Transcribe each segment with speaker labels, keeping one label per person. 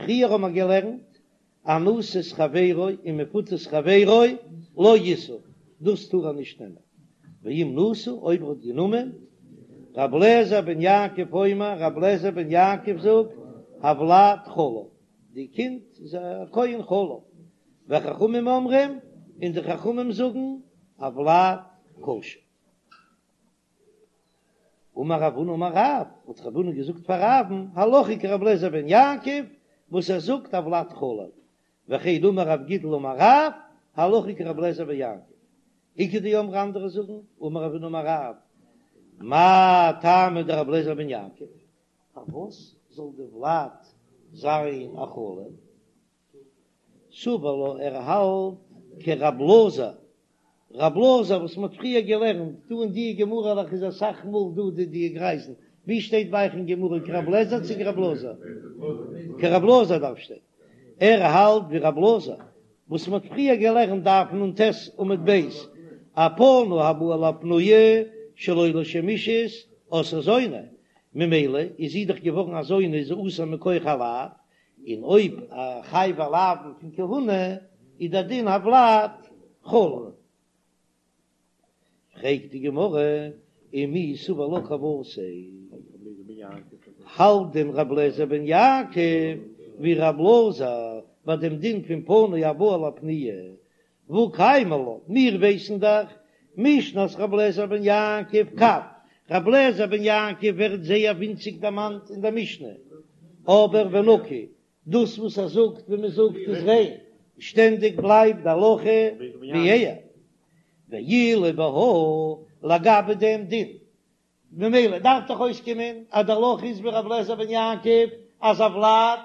Speaker 1: פריער האבן מיר געלערנט אנוסת חברו און מפותת חברו לא ישא, דאס טאר ער נישט נעמען, ואם נשא אויב ער האט גענומען, ר' אליעזר בן יעקב אומר, ר' אליעזר בן יעקב זאגט, הולד חלל, די קינד איז א כהן חלל, וחכמים אומרים, און די חכמים זאגן, הולד כשר. אמר רב הונא אמר רב, האט רב הונא געזאגט פאר רב'ן, הלכה כרבי אליעזר בן יעקב, וואס ער זאגט הולד חלל, וכן אמר רב גידל אמר רב, הלכה כרבי אליעזר בן יעקב. איכא דאמרי אנדערע זאגן, אמר רב הונא אמר רב, מאי טעמא דרבי אליעזר בן יעקב, פארוואס זאל די ולד זיין א חלל? סבר לה ער האלט כרב אלעזר, רב אלעזר וואס מ'האט פריער געלערנט דא אין די גמרא'לעך איז אסאך מאל דא די די גרייזן, ווי שטייט ביי אייך אין גמרא כרב לעזער צו כרב אלעזר? כרב אלעזר דארף שטיין, ער האלט ווי רב אלעזר וואס מ'האט פריער געלערנט דף נ"ט עמוד ב', א פנוי הבא על הפנויה שלא לשם אישות עשאה זונה, ממילא איז זי דאך געווארן א זונה איז זי אסור מכח א לאו, און אויב א חייבי לאוין פון כהונה איז דער דין הולד חלל. פרעגט די גמרא ומי סבר לה כוותיה, האלט דען ר' אליעזר בן יעקב ווי ר' אלעזר ביי דעם דין פון פנוי הבא על הפנויה והא קיימא לן, מיר ווייסן דאך משנת ר' אליעזר בן יעקב קב, ר' אליעזר בן יעקב ווערט זייער ווינציג דערמאנט אין דער משנה, אבער ונקי, דאס וואס ער זאגט ווי מען זאגט איז ריין, שטענדיג בלייבט די הלכה ווי ער, ואילו בהא לגבי דעם דין ממילא דארף דאך אויסקומען אז די הלכה איז ווי ר' אליעזר בן יעקב אז הולד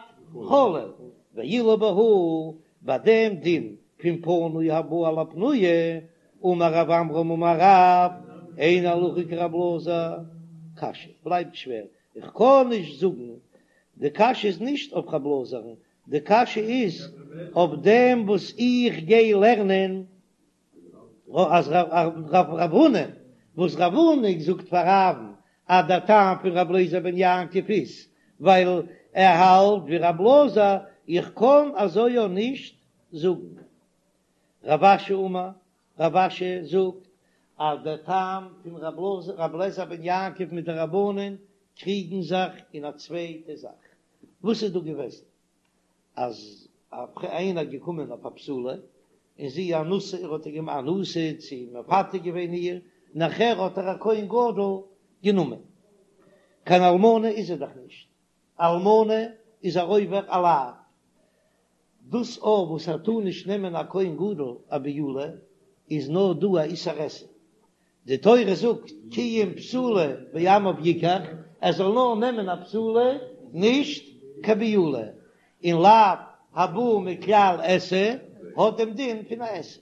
Speaker 1: חלל, ואילו בהא ביי דעם דין פון פנוי הבא על הפנויה, אמר רב עמרם אמר רב, אין הלכה כר' אלעזר, קשיא בלייבט שווער, איך קען נישט זאגן, די קשיא איז נישט אויף ר' אלעזר'ן, די קשיא איז אויף דעם וואס איך גיי לערנען אז רב הונא, וואס רב הונא זאגט פאר רב'ן אז דער טעם פון רבי אליעזר בן יעקב איז ווייל ער האלט ווי רבי אלעזר, איך קען אזוי אויך נישט זאגן. רב אשי אמר, רב אשי זאגט אז דער טעם פון רבי אליעזר בן יעקב מיט די רבנן קריגן זיך אין א צווייטע זאך, וואס איז דא געוועזן? אז איינער געקומען אויף א בתולה און זי אנוסה ער האט איר געמאכט אנוסה צו מפתה געווען איר נאכער האט איר א כהן גדול גענומען קיין אלמנה איז ער דאך נישט אלמנה איז ער עובר א לאו דאס אויך וואס ער טאר נישט נעמען א כהן גדול א בעולה איז נאר דא א איסור עשה די תורה זאגט כי אם בתולה בעמיו יקח, ער זאל נאר נעמען א בתולה נישט קיין בעולה, און לאו הבא מכלל עשה האט דעם דין פון א עשה.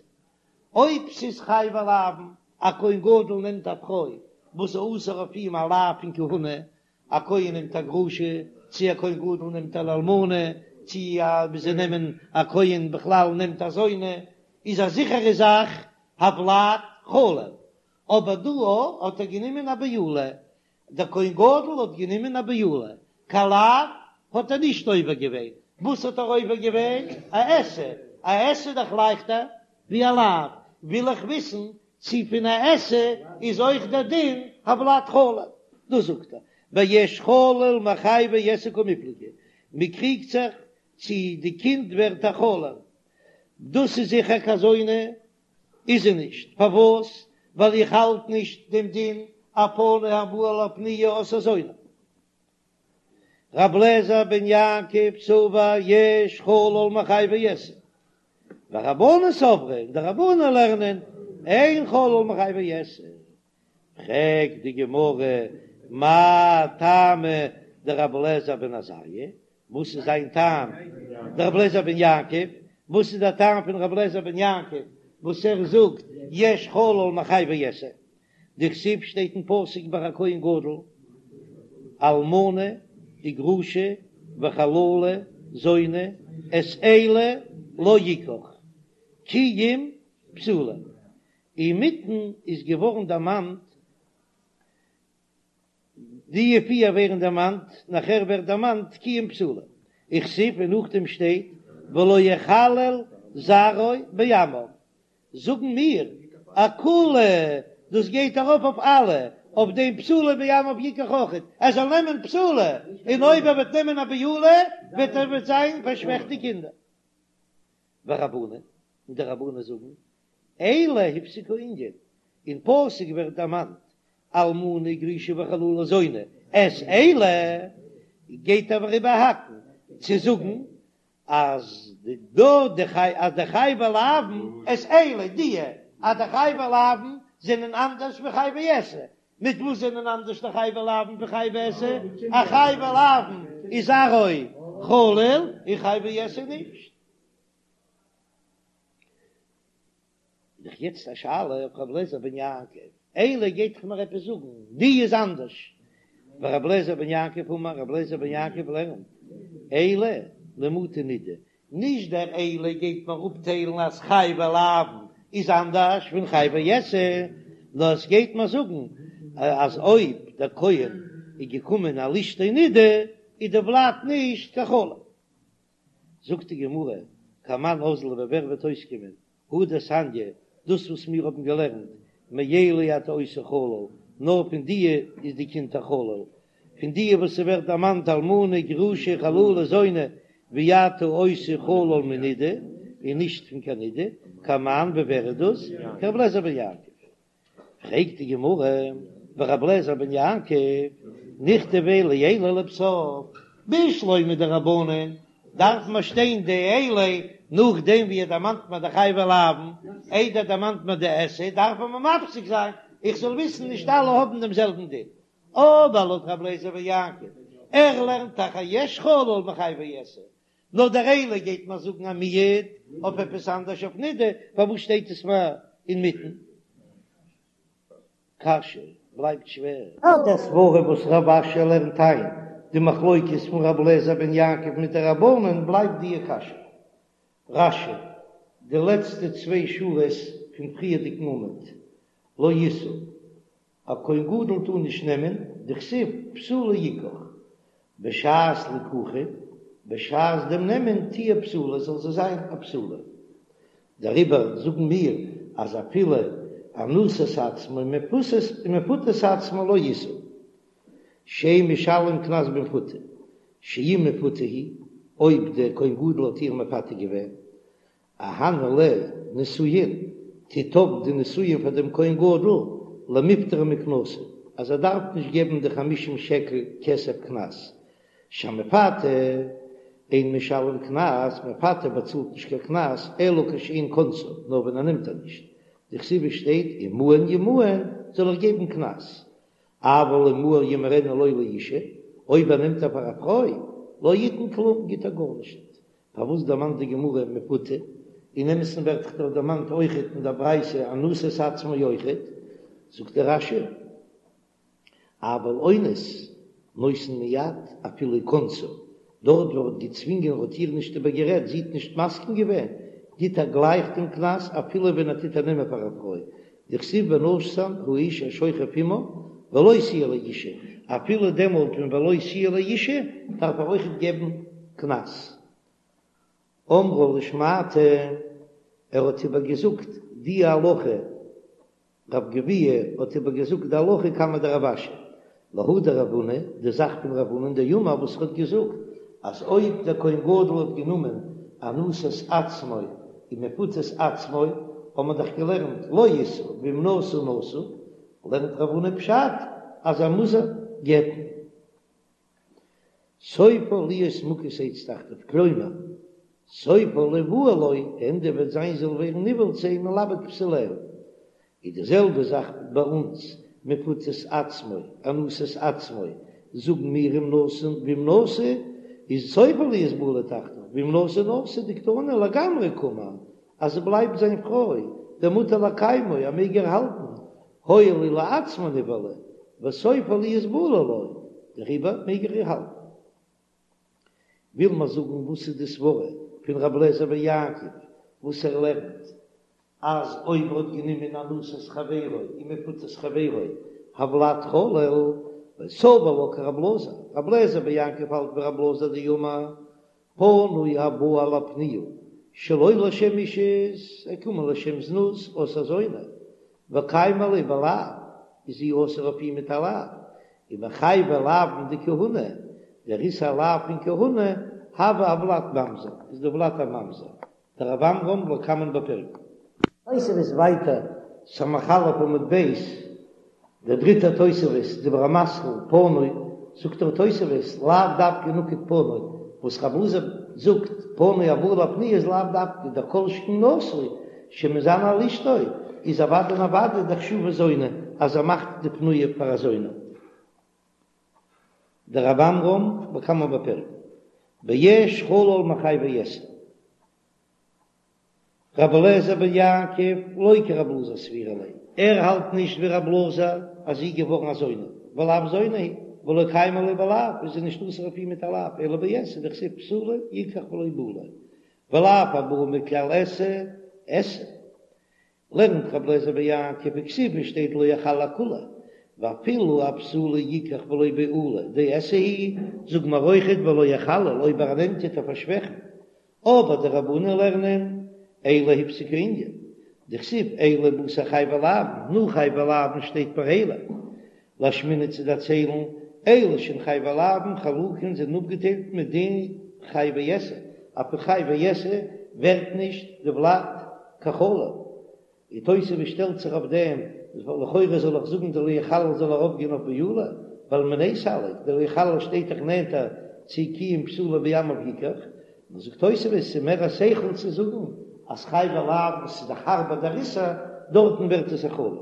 Speaker 1: אויב ס'איז חייבי לאוין, א כהן גדול נעמט א פרוי וואס איז אסור אויף אים א לאו פון כהונה, א כהן נעמט א גרושה, צי א כהן גדול נעמט אן אלמנה, צי א ווי זיי נעמען א כהן בכלל נעמט א זונה, איז א זיכערע זאך הולד חלל, אבער דא האט ער גענומען א בעולה, דער כהן גדול האט גענומען א בעולה, קיין לאו האט ער נישט עובר געווען, וואס האט ער עובר געווען? א עשה, א עשה איז דאך לייכטער ווי א לאו, וויל איך וויסן צי פון א עשה איז אויך דער דין הולד חלל, דאס זאגט ער ביש חלל מחייבי עשה קמיפלגי, מען קריגט זיך צי די קינד ווערט א חלל, דאס איז זיכער קיין זונה איז זי נישט, פארוואס? ווייל איך האלט נישט דעם דין א פנוי הבא על הפנויה עשאה זונה. ר' אליעזר בן יעקב סבר יש חלל מחייבי עשה, ורבנן סברי און די רבנן לערנען אין חלל מחייבי עשה. פרעגט די גמרא מאי טעמא דרבי אליעזר בן עזריה, וואס איז זיין טעם דרבי אליעזר בן יעקב, וואס איז דער טעם פון רבי אליעזר בן יעקב וואס ער זאגט יש חלל מחייבי עשה, דכתיב שטייט אין פסוק ביי א כהן גדול, אלמנה וגרושה וחללה זונה את אלה לא יקח כי אם בתולה, אינמיטן איז געווארן דערמאנט די פיר ווערן דערמאנט, נאכער ווערט דערמאנט כי אם בתולה. וכתיב און נאכדעם שטייט ולא יחלל זרעו בעמיו, זאגן מיר אכולהו, דאס גייט ארויף אויף אלע, אויף דעם בתולה בעמיו יקח אויכעט, ער זאל נעמען בתולה, און אויב ער וועט נעמען א בעולה וועט ער וועט זיין פארשוועכט די קינדער. ורבנן, און די רבנן זאגן, אלה הפסיק הענין, אין פסוק ווערט דערמאנט אלמנה גרושה וחללה זונה, את אלה גייט ער איבערהאקן צו זאגן אז דא די חי אז די חייבי לאוין את אלה די אז די חייבי לאוין זענען אנדערש ווי חייבי עשה, מיט וואס זענען אנדערש די חייבי לאוין פון חייבי עשה? א חייבי לאוין איז זרעו חלל און חייבי עשה נישט. איז דאך יעצט א שאלה אויף רבי אליעזר בן יעקב, אלה גייט דאך מיר עפעס זאגן, די איז אנדערש, ורבי אליעזר בן יעקב אמר, רבי אליעזר בן יעקב לערנט, אלה למעוטי נידה, נישט דער אלה גייט מיר אפטיילן אז חייבי לאוין איז אנדערש פון חייבי עשה, נאר עס גייט מיר זאגן אז אויב דער כהן איז געקומען על אשתו נידה איז דער ולד נישט קיין חלל. זאגט די גמרא, כמאן אזלא ווי ווער וועט אויסקומען, הא דתניא, דאס וואס מיר האבן געלערנט, מאלה אתה עושה חלל, נאר פון דיע איז די קינד א חלל, פון דיע וואס ס'ווערט דערמאנט אלמנה, גרושה, חללה, זונה, ואי אתה עושה חלל מנידה, און נישט פון קיין נידה, כמאן ווי ווער איז דאס? כרבי אליעזר בן יעקב. פרעגט די גמרא, ורבי אליעזר בן יעקב, נכתביה לאלה לבסוף, בשלמא די רבנן, דארף מען שטיין די אלה נאכדעם ווי ער דערמאנט מיר די חייבי לאוין, איידער דערמאנט מען די עשה, דארף מען מפסיק זיין, איך זאל וויסן נישט אלע האבן דעם זעלבן דין. אבער לויט רבי אליעזר בן יעקב, ער לערנט דאך אז יש חלל מחייבי עשה, נאר דער אלה גייט מיר זאגן א מיעוט אויף עפעס אנדערש אויף נידה, פארוואס שטייט עס מיר אינמיטן? קשיא בלייבט שווער. לויט דער סברא וואס רב אשי לערנט איין די מחלוקת פון רבי אליעזר בן יעקב מיט די רבנן בלייבט דיע קשיא. רש"י, די לעצטע צוויי שורות פון פריערדיגן עמוד, לא ישא, א כהן גדול טאר נישט נעמען, דכתיב בתולה יקח, בשעת ליקוחין, בשעת דעם נעמען תהיה בתולה זאל זי זיין א בתולה. דעריבער זאגן מיר אז אפילו אנוסת עצמו ומפותת עצמו לא ישא, שאין משלם קנס במפותה, שאם מפותה היא, אויב דער כהן גדול האט איר מפתה געווען, אהני ליה נישואין, טוט אויף די נישואין פאר דעם כהן גדול, למיפטריה מקנסא, אז ער דארף נישט געבן די חמישים שקל כסף קנס, שהמפתה אין משלם קנס, מפתה באצאלט נישט קיין קנס, אלא כשאין כונסה, נאר ווען ער נעמט איר נישט, דכתיב עס שטייט אם מאן ימאן זאל ער געבן קנס, אבל אם מהר ימהרנה לו לאשה, אויב ער נעמט איר פאר א פרוי, לא יתן כלום, גיט ער גארנישט, פארוואס דערמאנט די גמרא מפותה? אין אמת'ן ווערט דאך דארט דערמאנט אויכעט אין דער ברייתא אנוסת עצמו אויכעט, זאגט דער רש"י, אבל אונס נותן מיד אפילו כונסה, דארט וואו ער האט געצווינגען ער האט איר נישט איבערגערעדט, זי האט נישט מסכים געווען, גיט ער גלייך דעם קנס אפילו ווען ער טוט איר נעמען פאר א פרוי, דכתיב ונתן האיש השוכב עמה ולא תהיה לאשה, אפילו דעמאלט ווען ולא תהיה לאשה דארף ער אויכעט געבן קנס. אמרה לשמעתא, ער האט איבער געזאגט די הלכה, רב גביהה האט איבער געזאגט די הלכה קמיה דרב אשי, להא דרב הונא, די זאך פון רב הונא דאמר וואס ער האט געזאגט אז אויב דער כהן גדול האט גענומען אנוסת עצמו ומפותת עצמו, האט מען דאך געלערנט לא ישא ואם נשא נשוי, לערנט רב הונא פשט אז ער מוז איר גט'ן. סופה להיות מוכת עץ תחתיו, כלומר, סופה ליבעל לו, די ענדע וועט זיין זי זאל ווערן נבעל צו אים ולאבד בתוליה. איז די זעלבע זאך ביי אונז, מפותת עצמו, אנוסת עצמו, זאגן מיר אם נשא ואם נשוי, איז סופה להיות בעולה תחתיו, ואם נשא נשוי דקתני לגמרי קאמר, אז זי בלייבט זיין פרוי, דמותר לקיימו, ער מעג איר האלטן, הואיל ולעצמו נבעלה, וסופה להיות בעולה לו, דעריבער מעג ער איר האלטן. וויל מען זאגן וואס איז די סברה פון רבי אליעזר בן יעקב וואס ער לערנט אז אויב ער האט גענומען אנוסת חברו און מפותת חברו הולד חלל, וסבר לה כרבי אלעזר, רבי אליעזר בן יעקב האלט ווי רבי אלעזר דאמר. פנוי הבא על הפנויה שלא לשם אישות, ער קומען לשם זנות אסור זונה, וקיימא ליה בלאו, איז זי אסור אויף אים מיט א לאו, ומחייבי לאוין דכהונה, דער איסור לאו פון כהונה, הוי הולד ממזר, איז דער ולד א ממזר, דרב עמרם לקמן בפירקין. תוספות ווייטער, סמך א' עמוד ב', דער דריטער תוספות, דיבור המתחיל, פנוי, זאגט דער תוספות, לאו דווקא נקט פנוי, וואס רב אלעזר זאגט, פנוי הבא על הפנויה איז לאו דווקא, דכל שכן נשוי, שמזנה על אשתו, איז אוודאי און אוודאי דחשובה זונה, אז ער מאכט די פנויה פאר א זונה. דרב עמרם לקמן בפירקין, ביש חלל מחייבי עשה. רבי אליעזר בן יעקב לא כרבי אלעזר סבירא ליה, ער האלט נישט ווי רבי אלעזר אז זי איז געווארן א זונה, ולאו זונה היא, ולא קיימא ליה בלאו, איז זי נישט אסור אויף אים מיט א לאו, אלא בעשה דכתיב בתולה יקח ולא בעולה, ולאו הבא מכלל עשה, עשה. לערנט רבי אליעזר בן יעקב וכתיב עס שטייט לא יחלל כולה, ואפילו אבתולה יקח ולא בעולה דעשה היא, זאג מיר אויכעט ולא יחלל אויב ער נעמט טוט ער פארשוועכן, אבער די רבנן לערנען אלו הפסיק הענין, דכתיב אלו בתר חייבי לאוין, נאך חייבי לאוין שטייט פאר אלו, לאשמועינן צו דערציילן, אלו שהן חייבי לאוין חלוקין זענען אפגעטיילט מדין חייבי עשה, אז פון חייבי עשה ווערט נישט די ולד קיין חלל, און תוספות שטעלט זיך אויף דעם, לכאורה זאל איך זאגן די לא יחלל זאל ארויפגיין אויף בעולה, ווייל מיניה סליק, די לא יחלל שטייט דאך נענטער צו כי אם בתולה בעמיו יקח, נאר זאגט תוספות ס'איז מער א שכל צו זאגן אז חייבי לאוין וואס איז דאך הארבער דער איסור, דארטן ווערט עס א חלל.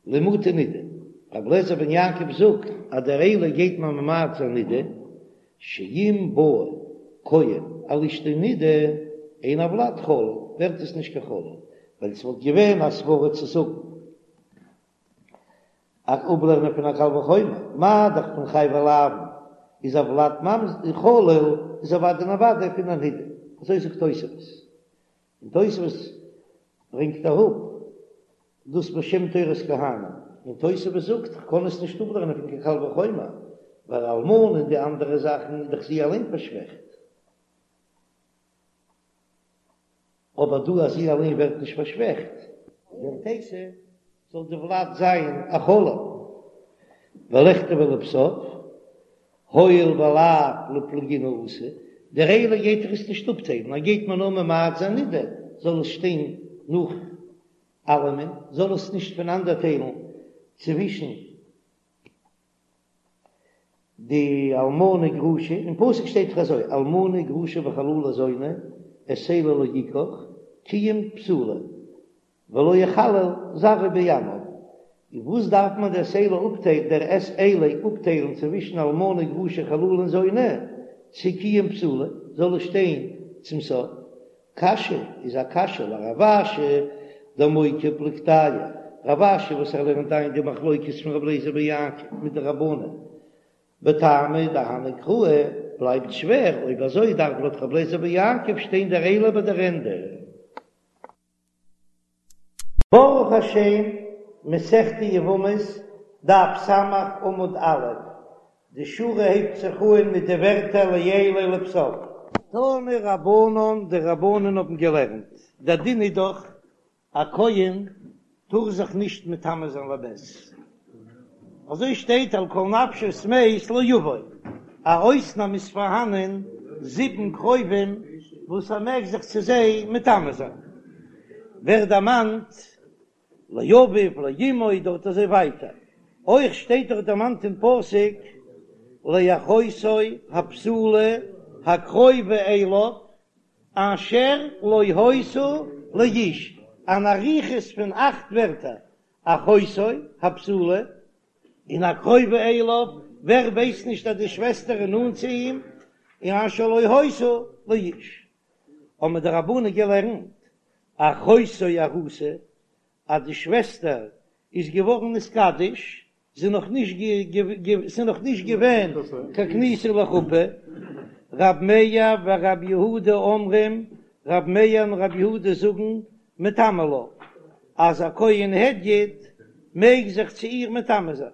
Speaker 1: למעוטי נידה, רבי אליעזר בן יעקב זאגט אז דער אלו גייט מען ממעט זיין נידה, שאם בא כהן על אשתו נידה אין הולד חלל, ווערט עס נישט קיין חלל, ווייל עס וואלט געווען א סברא צו זאגן א אפלערנען פון א קל וחומר, מה דאך פון חייבי לאוין איז הולד ממזר חלל איז אוודאי און אוודאי פון א נידה, אזוי זאגט תוספות. און תוספות ברענגט אראפ דאס בשם תורת כהנים, און תוספות זאגט כ'קען עס נישט אפלערנען פון קיין קל וחומר, ווייל אלמנה און די אנדערע זאכן איז דאך זי אליין פארשוועכט, אבער דא אז זי אליין ווערט נישט פארשוועכט. ווערט עשה זאל די ולד זיין א חלל, ולכתביה לבסוף, הואיל ולאו לפלוגינהו אתא, דער אלו גייט דאך עס נישט אפטיילן, ער גייט מיר נאר ממעט זיין נידה, זאל עס שטיין נאך אלעמען, זאל עס נישט פונאנדערטיילן צווישן די אלמנה גרושה, אין פסוק שטייט דאך אזוי, אלמנה גרושה וחללה זונה, את אלה לא יקח, כי אם בתולה. ולא יחלל זרעו בעמיו, און וואס דארף מען דער את אלה אפטיילן דער את אלה אפטיילן צווישן אלמנה גרושה חללה און זונה, צו כי אם בתולה זאל עס שטיין צום סוף? קשיא איז א קשיא לרב אשי דמוקי פלוגתייהו, רב אשי וואס ער לערנט איין די מחלוקת פון רבי אליעזר בן יעקב מיט די רבנן בטעמא דהני קראי בלייבט שווער, אויב אזוי דארף לויט רבי אליעזר בן יעקב שטיין דער אלו ביי דער ענדע. ברוך השם, מסכת יבמות, דף ס' עמוד א', די שורה הייבט זיך אהן מיט די ווערטער לאלו לבסוף. תנו רבנן, די רבנן האבן געלערנט, דער דין איז דאך, א כהן טאר זיך נישט מטמא זיין למת, אזוי שטייט על כל נפשות מת לא יבוא, א אויסנאם איז פארהאנען זיבן קרובים וואס ער מעג זיך צו זיי מטמא זיין, ווערט דערמאנט לאביו לאמו דארט אזוי ווייטער, אויך שטייט דארט דערמאנט אין פסוק לאחותו הבתולה הקרובה אליו אשר לא היתה לאיש, אן אריכות פון אכט ווערטער, אחותו הבתולה און הקרובה אליו, ווער ווייסט נישט אז די שוועסטער איז נאנט צו אים, און אשר לא היתה לאיש. האבן די רבנן געלערנט, אחותו ארוסה, אז די שוועסטער איז געווארן נתקדש, ס'איז נאך נישט ס'איז נאך נישט געווען קיין כניסה לחופה, רב מאיר ורב יהודה אומרים, רב מאיר און רב יהודה זאגן, מטמא לה, אז א כהן הדיוט מעג זיך צו איר מטמא זיין,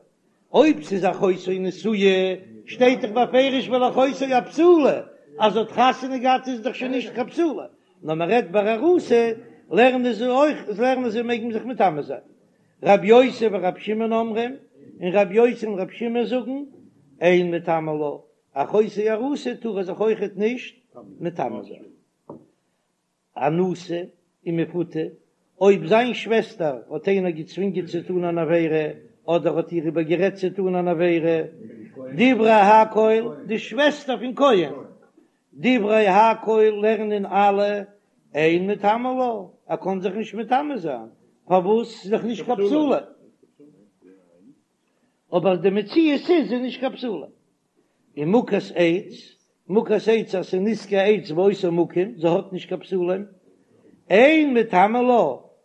Speaker 1: אויב ס'איז אחותו נשואה. שטייט דאך בפירוש ולאחותו הבתולה, אז זי האט חתונה געהאט איז דאך שוין נישט קיין בתולה, נאר מען רעדט ביי ארוסה, לערנען זיי אויך, לערנען זיי מעג מען זיך מטמא זיין. רב יוסי ורב שמעון אומרים, און רב יוסי און רב שמעון זאגן, אין מטמא לה, אחותו ארוסה טאר ער זיך אויכעט נישט מטמא זיין. אנוסה ומפותה, אויב זיין שוועסטער האט איינער געצווינגען צו טון אן עבירה, אדער האט איר איבערגערעדט צו טון אן עבירה, דברי הכל, די שוועסטער פון כהן, דברי הכל לערנען אלע, אין מטמא לה, ער קען זיך נישט מטמא זיין, פארוואס? ס'איז דאך נישט קיין בתולה. אבער די מציאות איז זי נישט קיין בתולה. און מוכת עץ, מוכת עץ אז ס'איז נזקי עץ באותו מקום, זי האט נישט קיין בתולים, אין מטמא לה,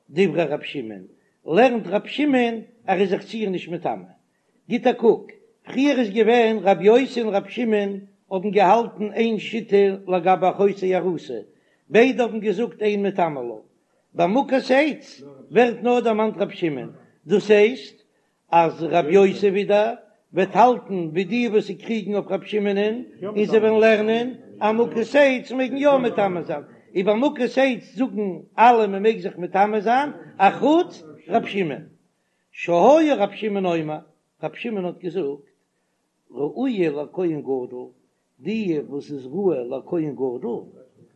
Speaker 1: דברי רב שמעון, לערנט רב שמעון ער איז זיך צו איר נישט מטמא. גיט א קוק, פריער איז געווען רב יוסי און רב שמעון האבן געהאלטן איין שיטה לגבי אחותו ארוסה, ביידע האבן געזאגט אין מטמא לה. ביי מוכת עץ ווערט נאר דערמאנט רב שמעון, דאס הייסט אז רב יוסי ווידער וועט האלטן ווי די וואס זיי קריגן אויף רב שמעונ'ען און זיי וועלן לערנען אז מוכת עץ מעג מען יא מטמא זיין, און ביי מוכת עץ זאגן אלע מען מעג זיך מטמא זיין אחוץ רב שמעון. שהיה רב שמעון אומר, רב שמעון האט געזאגט, ראויה לכהן גדול, די וואס איז ראוי לכהן גדול,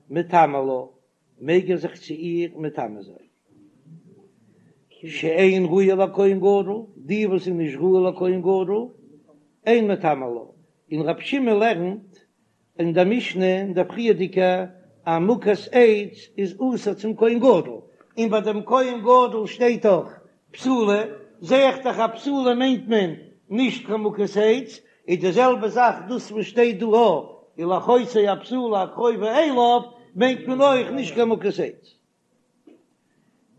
Speaker 1: מטמא לה, מעג ער זיך צו איר מטמא זיין. שאין ראויה לכהן גדול, די וואס איז נישט ראוי לכהן גדול, אין מטמא לה. און רב שמעון לערנט אין דער משנה אין דער פריערדיגע אז מוכת עץ איז אסור צום כהן גדול, און ביי דעם כהן גדול שטייט דאך בתולה, זע איך דאך אז בתולה מיינט מען נישט קיין מוכת עץ, איז די זעלבע זאך דאס וואס שטייט דא ולאחותו הבתולה הקרובה אליו מיינט מען אויך נישט קיין מוכת עץ.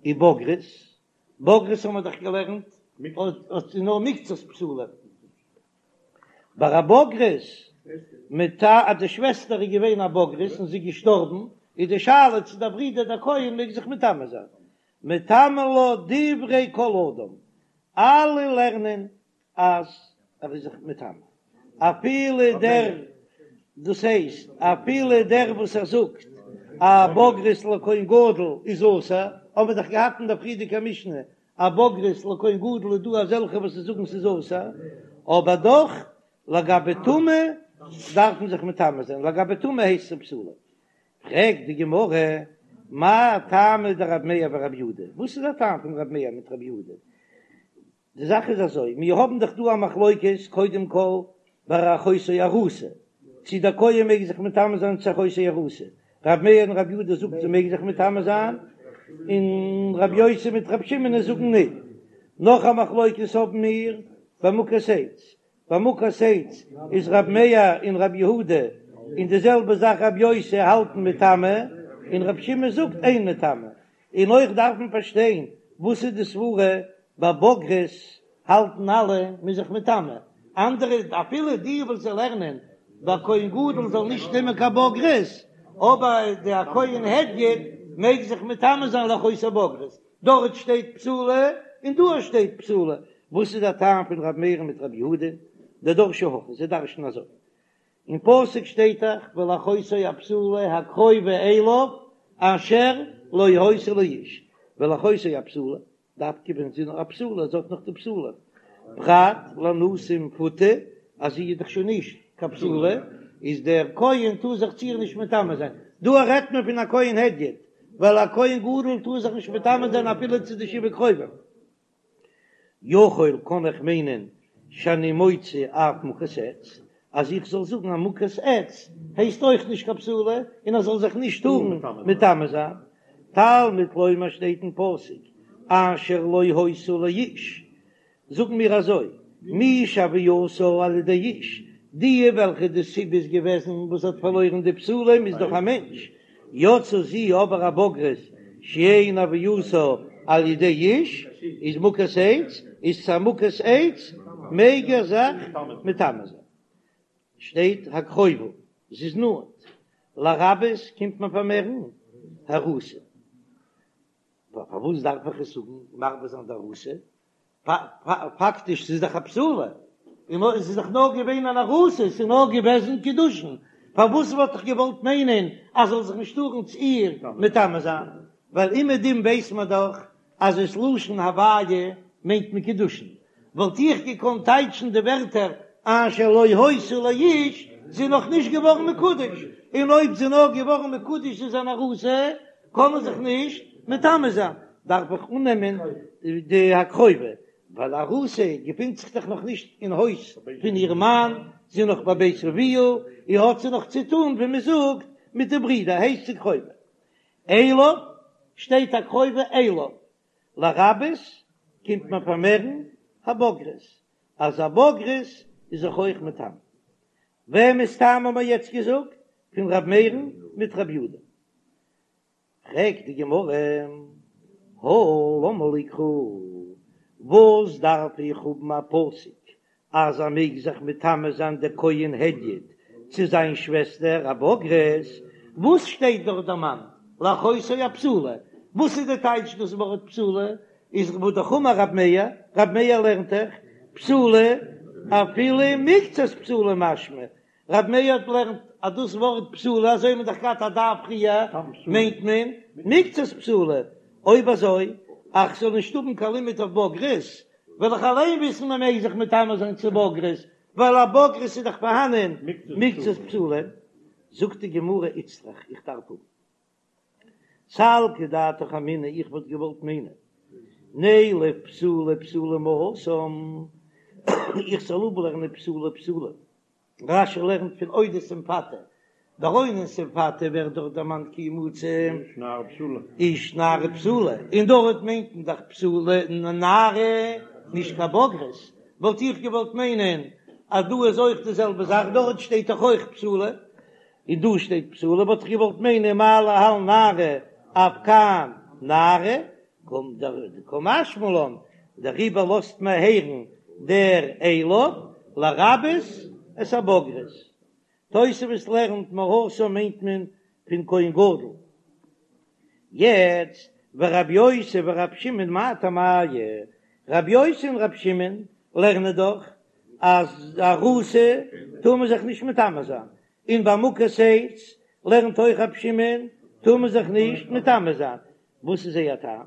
Speaker 1: ובוגרת, בוגרת האבן מיר דאך געלערנט אז נאר מקצת בתולים. ביי א בוגרת מטמא אז די שוועסטער איז געווען א בוגרת און זי איז געשטארבן, איז די שאלה צו דער ברודער דער כהן מעג זיך מטמא זיין. מטמא לה דברי כל אדם, אלע לערנען אז ער איז זיך מטמא, אפילו דער, דאס הייסט אפילו דער וואס ער זאגט א בוגרת לכהן גדול איז אסור, האבן מיר דאך געהאט אין דער פריערדיגער משנה א בוגרת לכהן גדול איז דא אזעלכע וואס זאגן ס'איז אסור, אבער דאך לגבי טומאה דארף מען זיך מטמא זיין, לגבי טומאה הייסט עס בתולה. פרעגט די גמרא, מאי טעמא דרב מאיר ורב יהודה, וואס איז דער טעם פון רב מאיר מיט רב יהודה? די זאך איז אזוי, מיר האבן דאך דא א מחלוקת קודם כל ביי אחותו ארוסה, צי דער כהן מעג זיך מטמא זיין צו אחותו ארוסה, ר' מאיר און ר' יהודה זאגט זי מעג זיך מטמא זיין, און ר' יוסי מיט ר' שמעון זאגן ניט. נאך א מחלוקת האבן מיר ביי מוכת עץ, ביי מוכת עץ איז ר' מאיר און ר' יהודה און די זעלבע זאך ר' יוסי האלטן מטמא, און ר' שמעון זאגט אין מטמא, און אויך דארף מען פארשטיין וואס איז די סברה ביי בוגרת האלטן אלע מ'איז זיך מטמא, אנדערע אפילו די וואס זיי לערנען ביי כהן גדול זאל נישט נעמען קיין בוגרת, אבער די א כהן הדיוט מעג זיך מטמא זיין לאחותו בוגרת, דארט שטייט בתולה און דא שטייט בתולה, וואס איז דער טעם פון ר' מאיר מיט ר' יהודה? דדרשי הכי, זיי דרש'ן אזוי, אין פסוק שטייט דאך ולאחותו הבתולה הקרובה אליו אשר לא היתה לאיש, ולאחותו הבתולה, דווקא ווען זי איז נאך א בתולה, זי האט נאך די בתולים, פרט לאנוסה ומפותה, אז זי איז דאך שוין נישט קיין בתולה, איז דער כהן טאר זיך צו איר נישט מטמא זיין, דא רעדט מען פון א כהן הדיוט, ווייל א כהן גדול טאר זיך נישט מטמא זיין אפילו צו די שבעה קרובים. יכול קען איך מיינען שאני מוציא אף מוכת עץ, אז איך זאל זאגן אז מוכת עץ הייסט אויך נישט קיין בתולה און ער זאל זיך נישט טארן מטמא זיין. תלמוד לומר שטייט אין פסוק אשר לא היתה לאיש, זאגן מיר אזוי, מי שהוייתה על ידי איש, די וועלכע די סיבה איז געוועזן וואס האט פארלוירן די בתולים איז דאך א מענטש, יצאה זו אבער א בוגרת שאין הוייתה על ידי איש איז מוכת עץ, איז צו א מוכת עץ מעג ער זיך מטמא זיין. שטייט הקרובה, זי איז נאנט, לרבות קומט מען פארמערן הארוסה. פארוואס דארף איך עס זאגן מרבה זיין די ארוסה? פאקטיש ס'איז דאך א בתולה. און עס איז דאך נאר געווען אן ארוסה, עס איז נאר געוועזן קידושין, פארוואס וואלט איך געוואלט מיינען אז זאל זיך נישט טארן צו איר מטמא זיין, ווייל אומעדום ווייס מען דאך אז עס לשון הוויה מיינט מען קידושין, וואלט איך געקאנט טייטשן די ווערטער אשר לא היתה לאיש, זי איז נאך נישט געווארן מקודש, און אויב זי איז נאר געווארן מקודש איז אן ארוסה, קען מען זיך נישט מטמא זיין, דארף איך אננעמען די הקרובה, ווייל ארוסה געפינט זיך דאך נאך נישט אין הויז פון איר מאן, זי איז נאך בבית אביה, און האט זי נאך צו טון ווי מען זאגט מיט די ברידער, הייסט זי קרובה. אליו, שטייט הקרובה אליו, לרבות קומט מען פארמערן הבוגרת, אז א בוגרת איז זיך אויך מטמא. וועמענס טעם האבן מיר יעצט געזאגט? פון ר' מאיר'ן מיט ר' יודא. פרעגט די גמרא, הא למה לי קרא, וואס דארף איך האבן א פסוק אז ער מעג זיך מטמא זיין דער כהן הדיוט צו זיין שוועסטער א בוגרת, וואס שטייט דארט דערמאנט לאחותו הבתולה, וואס איז די טייטש דאס ווארט בתולה, איז והא דאך אמר רב מאיר, רב מאיר לערנט דאך בתולה אפילו מקצת בתולה משמע, רב מאיר האט לערנט אז דאס ווארט בתולה אזוי האט מען דאך געהאט א דף פריער מיינט מען מקצת בתולה, אויב אזוי אז כ'זאל נישט האבן קיין לימוד אויף בוגרת וועל איך אליין וויסן מען מעג זיך מטמא זיין צו בוגרת, ווייל א בוגרת איז דאך פארהאנען מקצת בתולה. זאגט די גמרא איצטריך איך דארף האבן סלקא דעתך אמינא איך וואלט געוואלט מיינען נילף בתולה בתולה מהתם איך זאל אפלערנען בתולה בתולה רש"י לערנט פון אודות ומפתה, ביי אונס ומפתה ווערט דארט דערמאנט כי ימצא איש נערה בתולה, און דארט מיינט מען דאך בתולה נערה נישט קיין בוגרת, וואלט איך געוואלט מיינען אז דא איז אויך די זעלבע זאך, דארט שטייט דאך אויך בתולה, און דא שטייט בתולה, וואלט איך געוואלט מיינען מה להלן נערה אף כאן נערה, קומט דער קא משמע לן, דעריבער לאזט מען הערן דער אליו לרבות את הבוגרת. תוספות לערנט מהתם מיינט מען פון כהן גדול. יעצט ורבי יוסי ורבי שמעון מאי טעמייהו, רבי יוסי און רבי שמעון לערנען דאך אז ארוסה טאר מען זיך נישט מטמא זיין, און ביי מוכת עץ לערנט אויך רבי שמעון טאר מען זיך נישט מטמא זיין, וואס איז זייער טעם?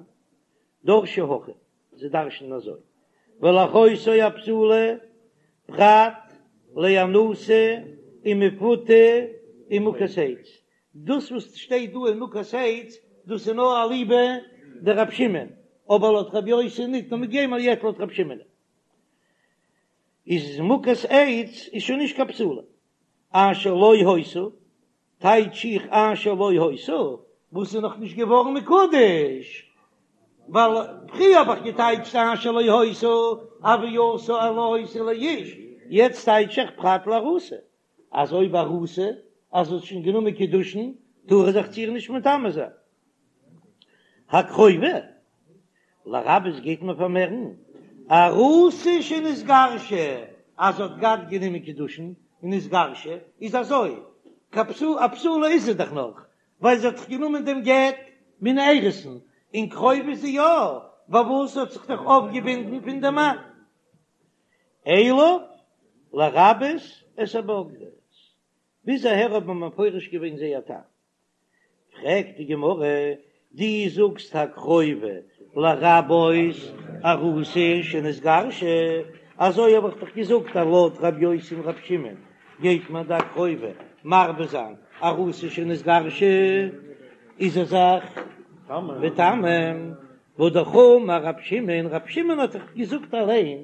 Speaker 1: דרשי הכי, זיי דרש'נען אזוי, ולאחותו הבתולה פרט לאנוסה ומפותה ומוכת עץ, דאס וואס שטייט דא ומוכת עץ, דאס איז נאר אליבא דרב שמעון, אבער לויט רבי יוסי ניט, נאר מיר גייען יעצט לויט רב שמעון. איז מוכת עץ איז שוין נישט קיין בתולה, אשר לא היתה, טייטש איך אשר לא היתה, וואס איז נאך נישט געווארן מקודש, ווייל פריער האב איך געטייטשט אשר לא היתה הוייתה לא היתה לאיש, יעצט טייטש איך פרט לארוסה, אז אויב ארוסה אז זי האט שוין גענומען קידושין טאר ער זיך צו איר נישט מטמא זיין. הקרובה לרבות גייט מען פארמערן ארוסה שנתגרשה אז זי האט געהאט גענומען קידושין און נתגרשה איז אזוי קיין בתולה א בתולה איז זי דאך נאך ווייל זי האט דאך גענומען דעם גט מן האירוסין און קרובה איז זי יא פארוואס האט זיך דאך אויפגעבינדן פון דעם מאן אליו לרבות את הבוגרת ביז אהער האט מען מפרש געווען זייער טעם. פרעגט די גמרא, דו זאגסט הקרובה לרבות ארוסה שנתגרשה, אזוי האב איך דאך געזאגט אז לויט ר' יוסי און ר' שמעון גייט מען די הקרובה מרבה זיין ארוסה שנתגרשה איז ער זיך מטמא, והא דאך אמר ר' שמעון, ר' שמעון האט דאך געזאגט אליין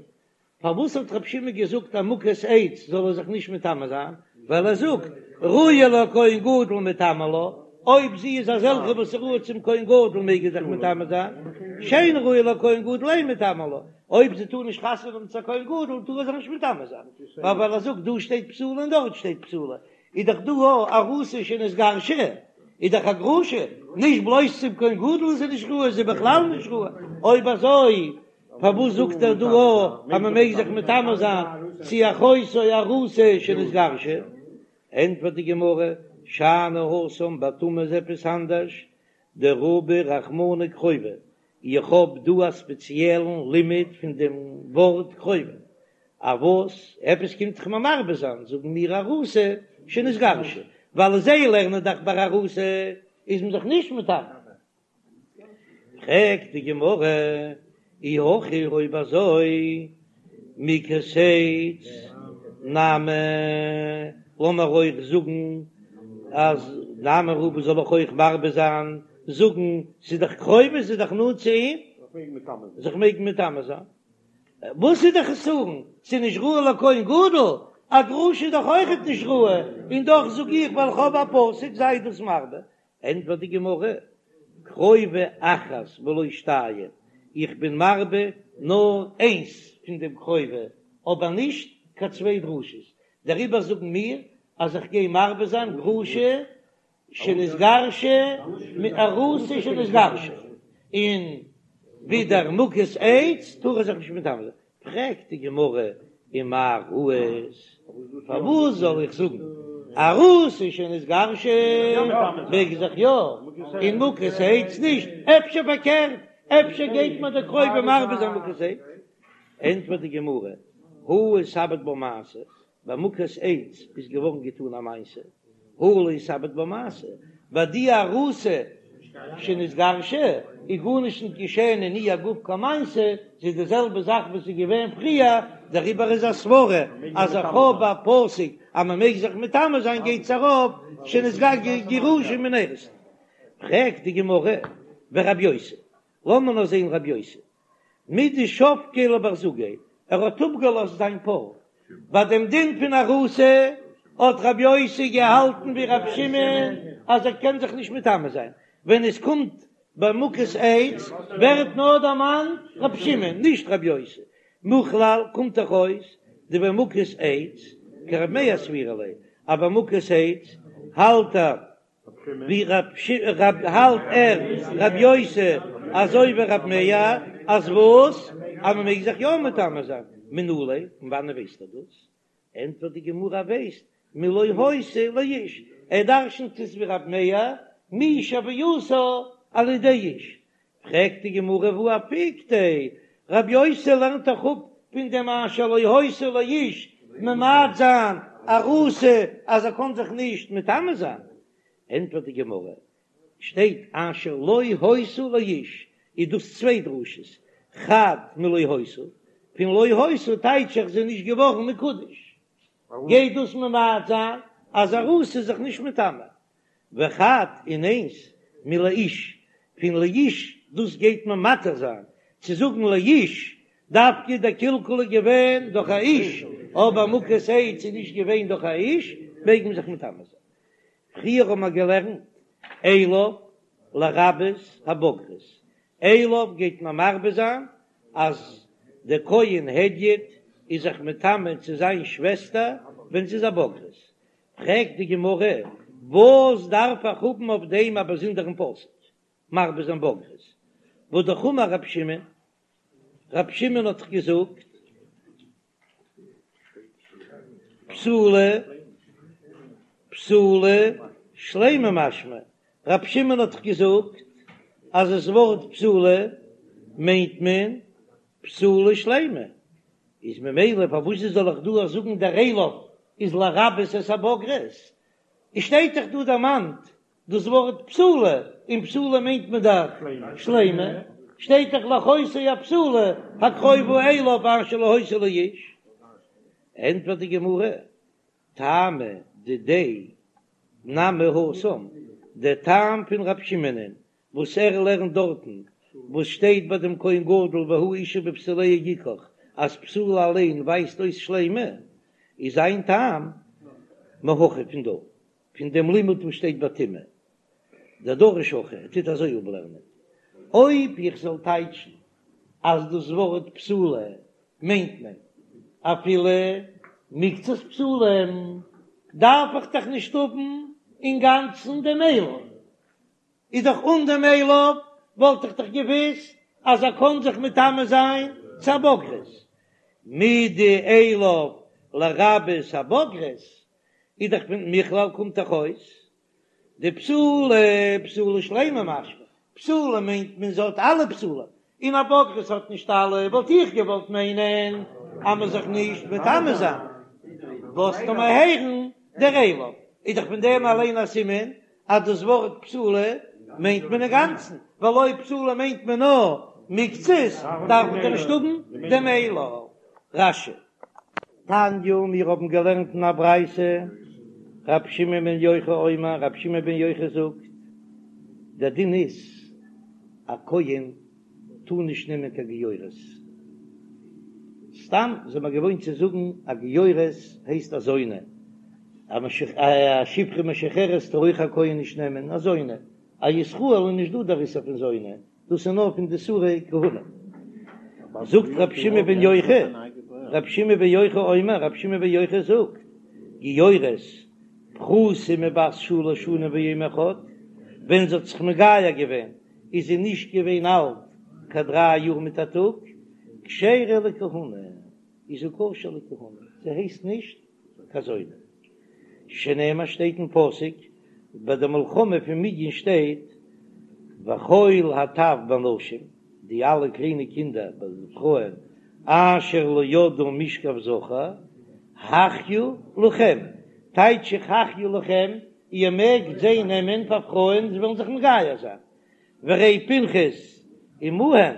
Speaker 1: פארוואס האט רבי שמעון געזאגט אז מוכת עץ זאל ער זיך נישט מטמא זיין? ווייל ער זאגט ראויה לכהן גדול מיטמא לה, אויב זי איז אזעלכע וואס איז ראוי צום כהן גדול מעג ער זיך מטמא זיין, שאינה ראויה לכהן גדול אין מיטמא לה, אויב זי טאר נישט חתונה האבן צו א כהן גדול טאר ער זיך נישט מטמא זיין, ווייל ער זאגט דא שטייט בתולה און דארט שטייט בתולה, איז דאך דא ארוסה שנתגרשה, איז דאך א גרושה, נישט בלויז צום כהן גדול איז זי נישט ראוי, זי איז בכלל נישט ראוי, אויב אזוי פארוואס זאגט ער דא אז מען מעג זיך מטמא זיין צו אחותו ארוסה שנתגרשה? ענטפערט די גמרא, שאני התם ביי טומאה איז עפעס אנדערש, דרבי רחמנא קרובה, איך האב דא א ספעציעלן לימוד פון דעם ווארט קרובה. א וואס? עפעס קומט דאך מיר מרבה זיין, זאגן מיר ארוסה שנתגרשה, ווייל זיי לערנען דאך ביי ארוסה איז מען זיך נישט מטמא. פרעגט די גמרא, אי הכי אויב אזוי מוכת עץ נמי, לאמיר אויך זאגן אז נמי רבא זאל איך אויך מרבה זיין, זאגן ס'איז דאך קרובה ס'איז דאך נאנט צו אים, זיך מעגן מטמא זיין. וואס איז די חסרון? ס'איז נישט ראוי לכהן גדול? א גרושה איז דאך אויכעט נישט ראוי, און דאך זאג איך ווייל איך האב א פסוק זיי דאס מרבה. ענטפערט די גמרא, קרובה אחת ולא שתיים, איך בין מרבה נאר איינס פון דעם קרובה, אבער נישט קיין צוויי דרשות, דעריבער זאגן מיר אז איך גיי מרבה זיין גרושה שנתגרשה מיט ארוסה שנתגרשה, און ווידער מוכת עץ טאר ער זיך נישט מטמא זיין. פרעגט די גמרא ומאי ראית, פארוואס זאל איך זאגן ארוסה שנתגרשה מעג זיך יא און מוכת עץ נישט, אפשר פארקערט, אפשר גייט מיר די קרובה מרבה זיין מוכת עץ? ענטפערט די גמרא, הא איתעביד בה מעשה, ביי מוכת עץ איז געווארן געטאן א מעשה, הא לא איתעביד בה מעשה, ביי די ארוסה שנתגרשה איז גארנישט נישט געשען אין איר גוף קיין מעשה, ס'איז די זעלבע זאך וואס איז געווען פריער, דעריבער איז א סברה אז איך האב א פסוק אז מען מעג זיך מטמא זיין גייט עס ארויף שנתגרשה גרושה מן האירוסין. פרעגט די גמרא ורבי יוסי, לאמיר נאר זען רבי יוסי, מדשבקיה לבר זוגיה, ער האט אפגעלאזט זיין פאר, ביי דעם דין פון ארוסה האט רבי יוסי געהאלטן ווי רבי שמעון אז ער קען זיך נישט מטמא זיין, ווען עס קומט ביי מוכת עץ ווערט נאר דערמאנט רבי שמעון נישט רבי יוסי, מכלל קומט דאך אויס דבמוכת עץ כרבי מאיר סבירא ליה, אז ביי מוכת עץ האלט ער ווי רב האלט ער רב יוסי אזוי ווי רב מאיר אז וואס אז מען מעג זיך יא מטמא זיין מנא ליה פון וואנען ווייסט ער דאס ענטפערט די גמרא ווייסט מלא היתה לאיש ער דרשנט עס ווי רב מאיר מי שהווייתה על ידי איש פרעגט די גמרא והא אפיקתיה רב יוסי לערנט דאך אפ פון דעם אשר לא היתה לאיש ממעט זיין ארוסה אז ער קען זיך נישט מטמא זיין, ענטפערט די גמרא, שטייט אשר לא היתה לאיש איז דאס צוויי דרשות, חד מלא היתה, פון לא היתה טייטש איך זי איז נישט געווארן מקודש, גייט דאס ממעט זיין אז ארוסה איז זיך נישט מטמא, וחד און איינס מלאיש, פון לאיש דאס גייט מען מתיר זיין צו זאגן לאיש, דווקא דער קלקול איז געווען דורך א איש, אבער מוכת עץ איז נישט געווען דורך א איש, מעג מען זיך מטמא זיין. פריער האבן מיר געלערנט אליו לרבות הבוגרת, אליו גייט מען מרבה זיין אז דער כהן הדיוט איז זיך מטמא צו זיין שוועסטער ווען זי איז א בוגרת, פרעגט די גמרא, וואס דארף איך האבן אויף דעם א באזונדערן פסוק, מרבה זיין בוגרת? והא אמר רב שמעון, רב שמעון האט דאך געזאגט, בתולה בתולה שלימה משמע, רב שמעון האט דאך געזאגט אז עס ווארט בתולה מיינט מען בתולה שלימה, איז ממילא פארוואס זאל איך דא זאגן דער אליו איז לרבות את הבוגרת? עס שטייט דאך דא דערמאנט דאס ווארט בתולה, און בתולה מיינט מען דאך שלימה, שטייט דאך לאחותו הבתולה הקרובה אליו אשר לא היתה לאיש. ענטפערט די גמרא, טעמא דידיה נמי התם, דער טעם פון רב שמעונ'ען וואס ער לערנט דארטן וואס שטייט ביי דעם כהן גדול והוא אשה בבתוליה יקח אז בתולה אליין ווייזט אויס שלימה, איז זיין טעם מהכא פון דא, פון דעם לימוד וואס שטייט ביי טומאה, דדריש הכי, ער טוט אזוי אפלערנען. אויב איך זאל טייטשן אז דאס ווארט בתולה מיינט מען אפילו מקצת בתולים, דארף איך דאך נישט האבן אינגאנצן דעם אליו. איז דאך אן דעם אליו וואלט איך דאך געוויסט אז ער קען זיך מטמא זיין צו א בוגרת, מדאליו לרבות הבוגרת, איז דאך פון מכלל קומט דאך אויס דבתולה בתולה שלימה משמע, בתולה מיינט מען זי האט אלע בתולים, און א בוגרת האט נישט אלע, וואלט איך געוואלט מיינען. אז מ'זאל זיך נישט מטמא זיין. לאזט ער מיר הערן דער אליו, איז דאך פון דעם אליין א סימן אז דאס ווארט פסולה מיינט מען אינגאנצן, ווייל אויב פסולה מיינט מען נאר מקצת, דארף מען דאך נישט האבן דעם אליו. רש"י. תניא, מיר האבן געלערנט אין א ברייתא, רבי שמעון בן יוחאי אומר, רבי שמעון בן יוחאי זאגט, דער דין איז, א כהן טאר נישט נעמען קיין גיורת. סתם זעמער געוואוינט צו זאגן א גיורת הייסט א זונה, א שפחה משוחררת טאר אויך א כהן נישט נעמען, א זונה, א ישראל איז נישט דא דער איסור פון זונה, דאס איז נאר פון די איסורי כהונה. זאגט רבי שמעון בן יוחאי, רבי שמעון בן יוחאי אומר, רבי שמעון בן יוחאי זאגט, גיורת פחותה מבת שלש שנים ויום אחד, ווען זי האט זיך מגייר געווען איז זי נישט געווען אלט קיין דריי יאר מיט א טאג, כשרה לכהונה, איז זי כשר לכהונה, זי הייסט נישט קיין זונה. שנאמר שטייט אין פסוק ביי די מלחמה פון מדין שטייט וכל הטף בנשים, די אלע קליינע קינדער ביי די פרויען, אשר לא ידעו משכב זכר, החיו לכם, טייטש איך החיו לכם, איר מעגט זיי נעמען פאר פרויען, זיי וועלן זיך מגייר זיין. והרי פנחס עמהם,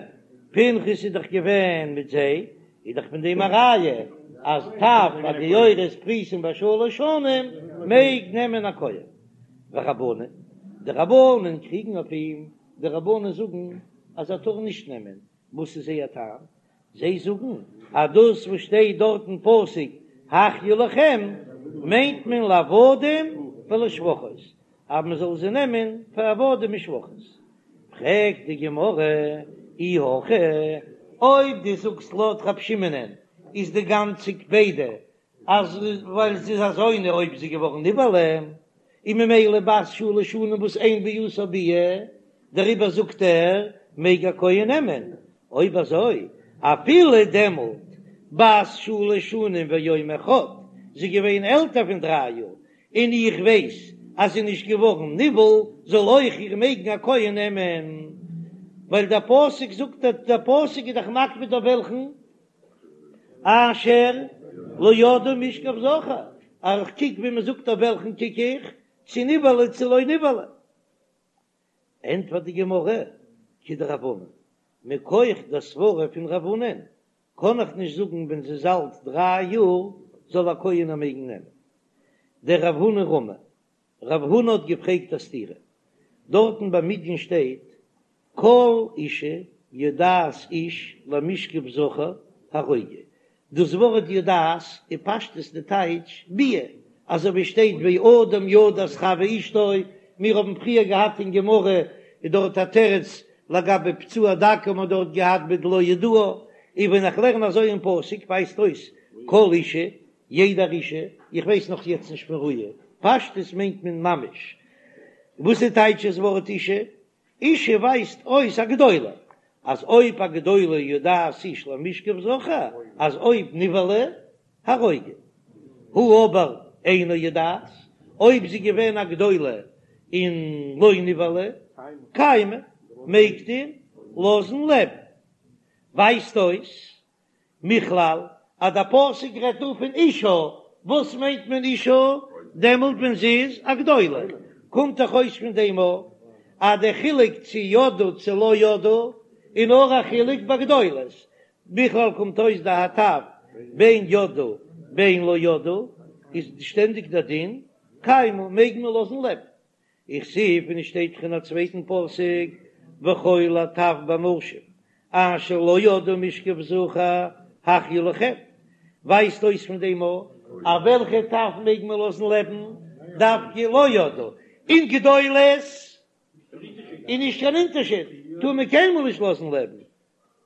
Speaker 1: פנחס איז דאך געווען מיט זיי, איז דאך פון דעם א ראיה אז טף א גיורת פחותים בשלש שנים מעג נעמען א כהן. ורבנן, די רבנן קריגן אויף אים, די רבנן זאגן אז ער טאר נישט נעמען, וואס איז זייער טעם? זיי זאגן אז דאס וואס שטייט דארט אין פסוק החיו לכם מיינט מען לעבדים ולשפחות, אז מען זאל זיי נעמען פאר עבדים און שפחות. פרעגט די גמרא, אי הכי, אויב דו זאגסט לויט רב שמעונ'ען איז די גאנצע קפידא אז ווייל זי איז א זונה אויב זי איז געווארן נבעלה, און ממילא בת שלש שנים וואס אין ביאתה ביאה, דעריבער זאגט ער מעג א כהן נעמען, אויב אזוי אפילו דעמאלט בת שלש שנים ויום אחד, זי איז געווען עלטער פון דריי יאר, און איך ווייס אז זי איז נישט געווארן נבעל, זאל אויך איר מעגן א כהן נעמען, ווייל דער פסוק זאגט, דער פסוק איז דאך מקפיד אויף וועלכן אשר לא ידעו משכב זכר, אז איך קוק ווי מען זאגט אויף וועלכן קוק איך, צו נבעלה צו לא נבעלה. ענטפערט די גמרא, כדרב הונא, מכח דער סברא פון רב הונא'ן קען איך נישט זאגן ווען זי איז אלט דריי יאר זאל א כהן איר מעגן נעמען. דרב הונא רמי, רב הונא האט געפרעגט א סתירה, דארטן ביי מדין שטייט כל אשה יודעת איש למשכב זכר הרוגו, דאס ווארט יודעת איז פשטות די טייטש ביאה, אזוי ווי שטייט ואדם ידע את חוה אשתו, מיר האבן פריער געהאט אין גמרא איז דארט א תירוץ לגבי פצוע דכא האט מען דארט געהאט בדלא ידעה, און ווען איך לערן אזוי אין פסוק ווייזט אויס כל אשה יעדער אשה, איך ווייס נאך יעצט נישט פון ראיה, פשטות מיינט מען ממש, וואס איז טייטש דאס ווארט אשה? אשה ווייזט אויס א גדולה, אז אויב א גדולה יודעת איש למשכב זכר, אז אויב נבעלה הרוגו, הא אבער אינה יודעת, אויב זי געווען א גדולה און לא נבעלה, קיימא, מעגט איר לאזן לעבן. ווייזט אויס מכלל אז דער פסוק רעדט דא פון אשה, וואס מיינט מען אשה? דעמאלט ווען זי איז א גדולה, קומט דאך אויס פון דעם א אז דער חילוק צו ידעו צו לא ידעו איז נאר א חילוק ביי גדולות, מכלל קומט אויס דהטף בין ידעו בין לא ידעו איז שטענדיג דער דין קיימא מעג מען לאזן לעבן. וכתיב און עס שטייט דאך אין א צווייטן פסוק וכל הטף בנשים אשר לא ידעו משכב זכר החיו לכם, ווייזט אויס פון דעם א אז וועלכע טף מעג מען לאזן לעבן דווקא לא ידעו, און גדולות איז נישט קיין אונטערשיד טאר מען קיינמאל נישט לאזן לעבן,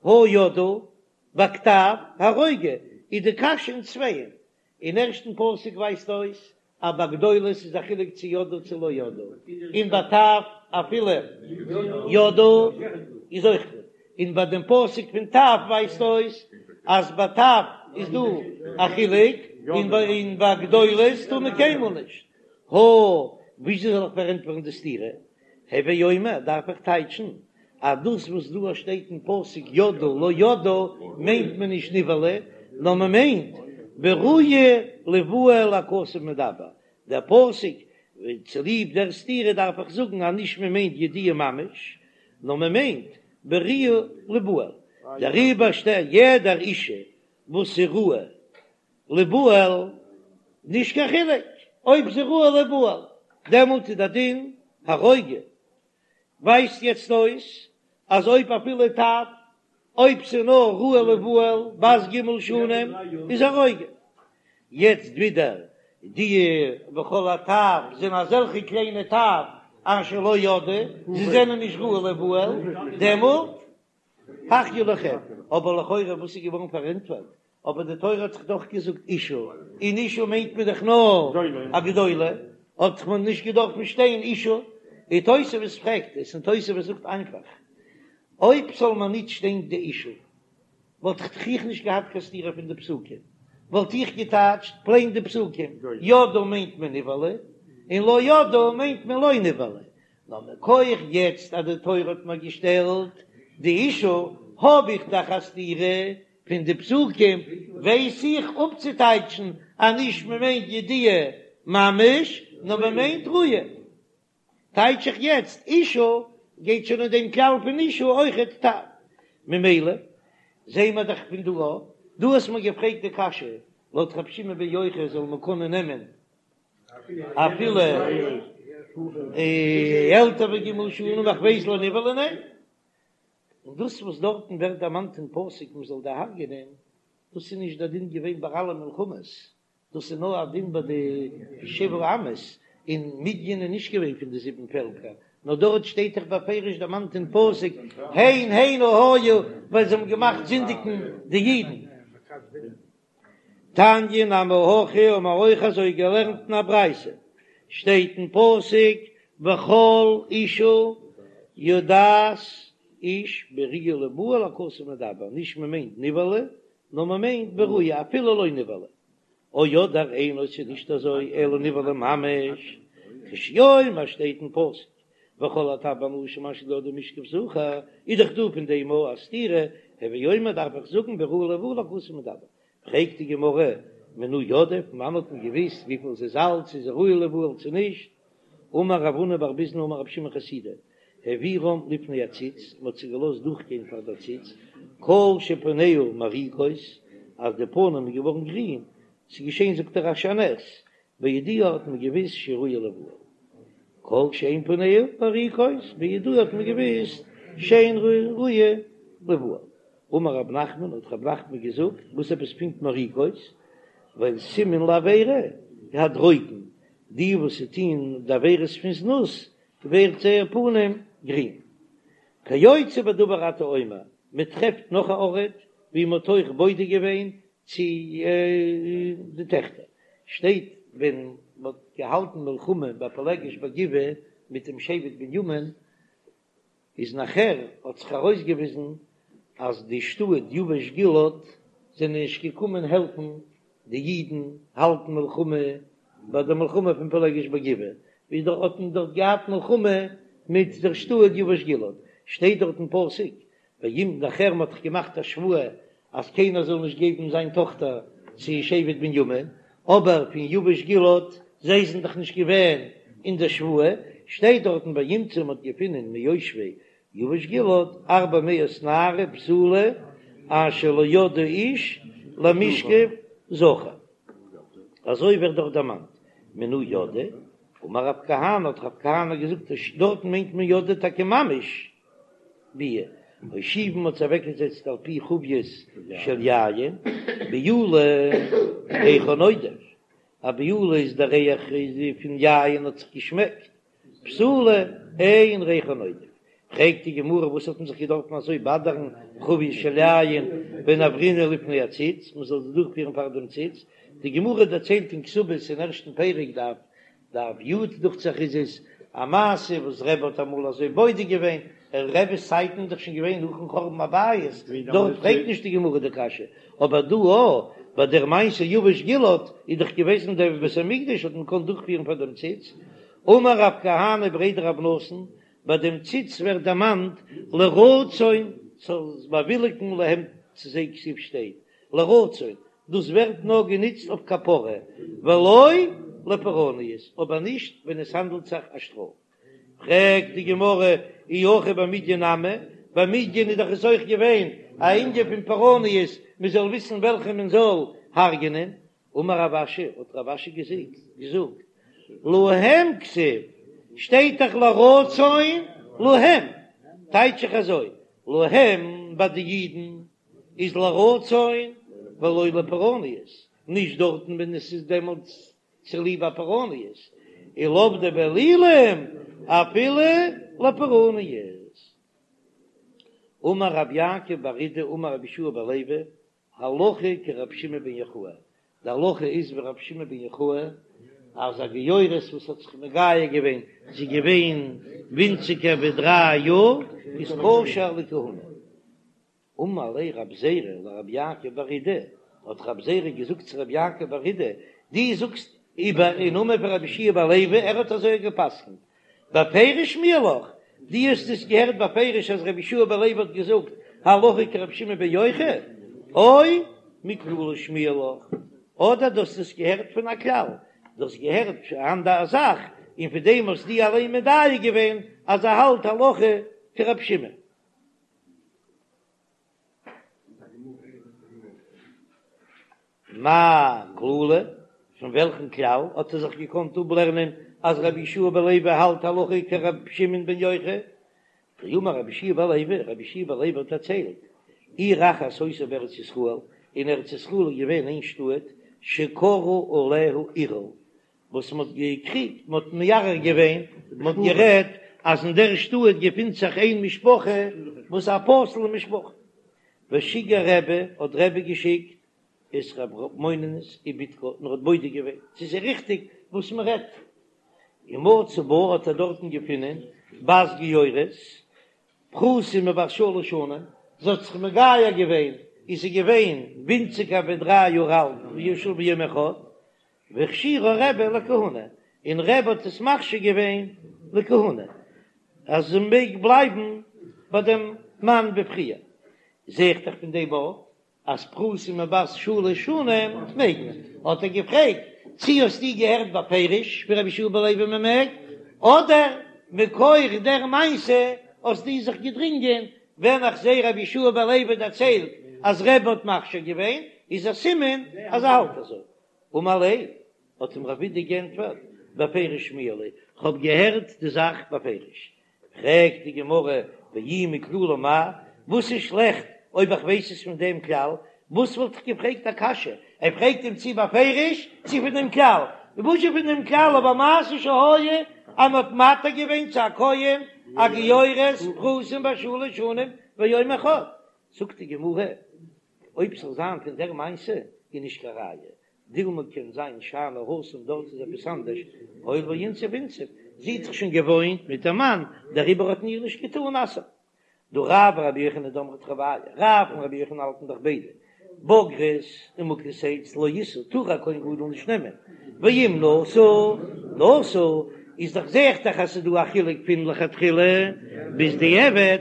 Speaker 1: הא ידעו בכתב הרוגו איז די קשיא אין צווייען, אין ערשטן פסוק ווייזט אויס אז ביי גדולות איז א חילוק צו ידעו צו לא ידעו, און ביי טף אפילו ידעו איז אויך גוט, און ביי דעם פסוק פון טף ווייזט אויס אז ביי טף איז דא א חילוק, און ביי גדולות טאר מען קיינמאל נישט. הא, וויאזוי זאל איך פארענטפערן די סתירה? הוי אומר, דארף איך טייטשן אז דאס וואס דא שטייט אין פסוק ידעו לא ידעו מיינט מען נישט נבעלה. נאר מען מיינט בראויה ליבעל הכתוב מדבר, דער פסוק צוליב דער סתירה דארף איך זאגן אז נישט מען מיינט ידיעה ממש, נאר מען מיינט בראויה ליבעל, דעריבער שטייט יעדער אישה וואס איז ראויה ליבעל, נישט קיין חילוק אויב זי ראויה ליבעל, דעמאלט איז דער דין הרוגו. ווייזט יעצט אויס אז אויב אפילו טף, אויב ס'איז נאר ראויה ליבעל בת ג' שנים איז הרוגו. יעצט ווידער די וכל הטף זענען אזעלכע קליינע טף אשר לא ידעו, זיי זענען נישט ראויה ליבעל, דעמאלט החיו לכם. אבער לכאורה וואס איז געווארן פארענטפערט אבער די תורה האט זיך דאך געזאגט אישה, און אישה מיינט מען דאך נאר א גדולה, האט מען נישט געדארפן שטיין אישה, און תוספות פרעגט עס, און תוספות זאגט איינפאך, אויב זאל מען נישט שטיין די אישה, וואלט איך איך נישט געהאט קיין סתירה פון די פסוקים, וואלט איך געטייטשט פלעין די פסוקים, ידעו מיינט מען נבעלה, און לא ידעו מיינט מען לא נבעלה, נאר מכח יעצט אז די תורה האט מיר געשטעלט די אישה, האב איך דאך א סתירה פון די פסוקים, ווייס איך אפצוטייטשן אז נישט מען מיינט ידיעה ממש, נאר מען מיינט ראויה. טייטש איך יעצט אישה גייט שוין אין דעם כלל פון אישה אויכעט טף. ממילא זעהן מיר דאך פון דא א, דו האסט מיר געפרעגט די קשיא, לויט רבי שמעון בן יוחאי זאל מען קענען נעמען אפילו עלטער ווי ג' שנים איך ווייס לא נבעלה ניין. און דאס וואס דארטן ווערט דערמאנט אין פסוק מען זאל דערהרגענען, דאס איז נישט דער דין געווען ביי אלע מלחמות, דאס איז נאר א דין ביי די שבעה אומות, און מדין איז נישט געווען פון די זיבן פעלקער, נאר דארט שטייט דאך בפירוש דערמאנט אין פסוק הן הנה היו, ווייל זיי האבן געמאכט זינדיגן די אידן. תניא נמי הכי האבן מיר אויך אזוי געלערנט אין א ברייתא, שטייט אין פסוק וכל אישה יודעת איש בראויה ליבעל הכתוב מדבר, נישט מען מיינט נבעלה נאר מען מיינט בראויה אפילו לא נבעלה, או אדער אינו ס'איז נישט אזוי אלא נבעלה ממש, כשהוא אומר שטייט אין פסוק וכל הטף והנשים אשר לא ידעו משכב זכר, איז דאך דא פון דעם א סתירה, הוי אומר דארף איך זאגן בראויה ליבעל הכתוב מדבר. פרעגט די גמרא, מנא ידעי, פון וואנען האט מען געוויסט וויפיל זי איז אלט, צו זי איז ראויה ליבעל צו נישט? אמר רב הונא בר ביזנא אמר רבי שמעון חסידא, העבירם לפני הציץ, מען האט זיי געלאזט דורכגיין פאר דער ציץ, כל שפניה מוריקות, אז די פנים איז געווארן גרין, ס'איז געשען זאגט דער רש"י א נס, בידוע האט מען געוויסט שראויה ליבעל. כל שאין פניה מוריקות, בידוע האט מען געוויסט שאין ראויה ליבעל. אמר רב נחמן, האט רב נחמן געזאגט, וואס עפעס פונקט מוריקות? ווייל סימן לעבירה הדרוקן, די וואס טוהן די עבירות פון זנות ווערט זייער פנים גרין. כיוצא בדבר אתה אומר, מען טרעפט נאך א ארט ווי מען האט אויך בודק געווען צו די טעכטער, שטייט ווען מען האט געהאלטן מלחמה ביי פילגש בגבעה מיט דעם שבט בנימין, איז נאכער האט זיך ארויסגעוויזן אז די שטאט יבש גלעד זענען נישט געקומען העלפן די אידן האלטן מלחמה ביי די מלחמה פון פילגש בגבעה, ווי דארט האט מען דארט געהאט מלחמה מיט דער שטאט יבש גלעד, שטייט דארט אין פסוק וימצאו נאכער מ'האט דאך געמאכט א שבועה אז קיינער זאל נישט געבן זיין טאכטער צו שבט בנימין, אבער פון יבש גלעד, זיי זענען דאך נישט געווען אין דער שבועה, שטייט דארטן וימצאו מ'האט געפונען מיושבי יבש גלעד ארבע מאות נערה בתולה אשר לא ידעו איש למשכב זכר, אזוי ווערט דארט דערמאנט, מנא ידעו, אמר רב כהנא האט רב כהנא געזאגט דארטן מיינט מען ידעו טאקע ממש ביאה, הושיבן מ'האט זיי אוועקגעזעצט על פי חביות של יין, בעולה ריחה נודף, א בעולה איז דער ריח פון יין האט זיך געשמעקט, בתולה אין ריחה נודף, פרעגט די גמרא וואס האט מען זיך געדארפן אזוי באדערן חביות של יין ונעברינהו לפני הציץ, מען זאל זיי דורכפירן פאר דעם ציץ, די גמרא דערציילט אין כתובות אין ערשטן פרק דף דף י' דוכט זיך איז עס א מעשה וואס רבי האט אמאל אזוי בודק געווען, אין רבי'ס צייטן איז דאך שוין געווען נאכן חורבן הבית, דארט פרעגט נישט די גמרא די קשיא, אבער דא א ביי דער מעשה יבש גלעד איז דאך געוועזן דער בית המקדש האט מען געקאנט דורכפירן פאר דעם ציץ, אמר רב כהנא בריה דרב נתן, ביי דעם ציץ ווערט דערמאנט לרצון זאל באוויליגן להם צו זיי כתיב שטייט. לרצון, דאס ווערט נאר גענוצט אויף כפרה, ולא לפורעניות, אבער נישט ווען עס האנדלט זיך א שטראף. פרעגט די גמרא, אי הכי במדין נמי, ביי מדין איז דאך עס אויך געווען א ענין פון פורעניות, מען זאל וויסן וועלכע מען זאל הרג'נען, אמר רב אשי, האט רב אשי געזאגט, להם כתיב, שטייט דאך לרצון להם, טייטש איך אזוי, להם ביי די אידן איז לרצון ולא לפורעניות, נישט דארטן ווען עס איז דעמאלטס צוליב א פורעניות, ולעובדי באלילים אפילו לפורעניות. אמר רב יעקב בר אידי אמר רבי יהושע בן לוי, הלכה כרבי שמעון בן יוחאי, די הלכה איז ווי רבי שמעון בן יוחאי, אז א גיורת וואס האט זיך מגייר געווען, זי איז געווען ווינציגער ווי דריי יאר, איז כשר לכהונה. אמר ליה רב זירא לרב יעקב בר אידי, האט רב זירא געזאגט צו רב יעקב בר אידי, דו זאגסט איבער אין נאמען פון רבי יהושע בן לוי, ער האט אזוי גע'פסק'נט, בפירוש שמיע לך, דו האסט עס געהערט בפירוש אז רבי יהושע בן לוי האט געזאגט הלכה כרבי שמעון בן יוחאי, או מכללא שמיע לך, אדער דו האסט עס געהערט פון א כלל, דו האסט געהערט אן אנדער זאך און פון דעם האסט דו אליין מדייק געווען אז ער האלט הלכה כרבי שמעון. מאי כללא, פון וועלכן כלל האט ער זיך געקאנט אפלערנען אז רבי יהושע בן לוי האלט הלכה כרבי שמעון בן יוחאי? דאמר רבי יהושע בן לוי, רבי יהושע בן לוי האט דערציילט, עיר אחת היתה בארץ ישראל, אין ארץ ישראל איז געווען איין שטאט, שקרו עליה ערעור, וואס מען האט געקריגט, מען האט מערער געווען, מען האט גערעדט אז אין דער שטאט געפינט זיך איין משפחה וואס איז א פסול'ע משפחה. ושיגר רבי, האט רבי געשיקט את רב מוננוס ובדקה, און ער האט בודק געווען צו ס'איז ריכטיג וואס מען רעדט, ומצא בה האט ער דארטן געפונען בת גיורת, פחותה מבת שלש שנים, זי האט זיך מגייר געווען, איז זי געווען ווינציגער ווי דריי יאר אלט, ויום אחד, והכשירה רבי לכהונה, און רבי האט עס מכשיר געווען לכהונה, אז זי מעג בלייבן ביי דעם מאן ווי פריער. זע איך דאך פון דעם אויך אז פחותה מבת שלש שנים מעג מען. האט ער געפרעגט, צי האסטו געהערט בפירוש פון רבי יהושע בן לוי מען מעג, אדער מכח דער מעשה האסטו זיך געדרינגען, ווען איך זע רבי יהושע בן לוי דערציילט אז רבי האט מכשיר געווען, איז א סימן אז ער האלט אזוי. אמר ליה, האט אים רב אידי גענטפערט, בפירוש שמיע לי, כ'האב געהערט די זאך בפירוש. פרעגט די גמרא, ואי מכללא מאי, וואס איז שלעכט אויב איך ווייס עס פון דעם כלל? וואס וואלט איך געפרעגט א קשיא? ער פרעגט אים צי בפירוש צי פון דעם כלל. וואס איז פון דעם כלל? אבער מעשה שהיה אז מ'האט מתיר געווען צו א כהן א גיורת פחותה מבת שלש שנים ויום אחד. זאגט די גמרא, אויב ס'זאל זיין פון דער מעשה איז נישט קיין ראיה, דילמא קען זיין שאני התם דארט איז עפעס אנדערש, הואיל ואינסיב אינסיב, זי האט זיך שוין געוואוינט מיט דעם מאן, דעריבער האט מען איר נישט געטאן אסר'ן. דהא רב ורבי יוחנן דאמרי תרוייהו, רב און רבי יוחנן האלטן דאך ביידע, בוגרת ומוכת עץ לא ישא, טאר א כהן גדול נישט נעמען, ואם נשא נשא, איז דאך זעהט דאך אז ס'איז דא א חילוק פון לכתחילה ביז דיעבד.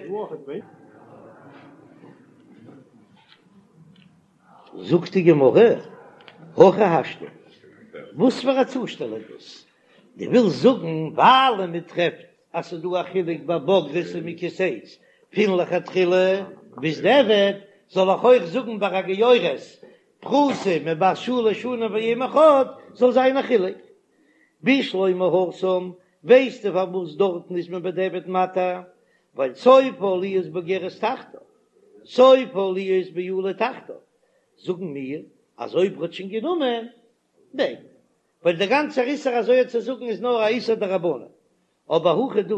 Speaker 1: זאגט די גמרא, הכי השתא, וואס פאר א צושטעל איז דאס? דו ווילסט זאגן ווייל מען טרעפט אז ס'איז דא א חילוק ביי בוגרת און מוכת עץ פון לכתחילה ביז דיעבד, זאל איך אויך זאגן ביי א גיורת פחותה מבת שלש שנים ויום אחד זאל זיין א חילוק? בשלמא התם, ווייסטו פארוואס דארטן איז מען בדיעבד מתיר? ווייל סופה להיות בוגרת תחתיו, סופה להיות בעולה תחתיו, זאגן מיר אז אויב ר'האט שוין גענומען, מעג מען, ווייל דער גאנצער איסור אזוי צו זאגן איז נאר א איסור דרבנן, אבער הכא דא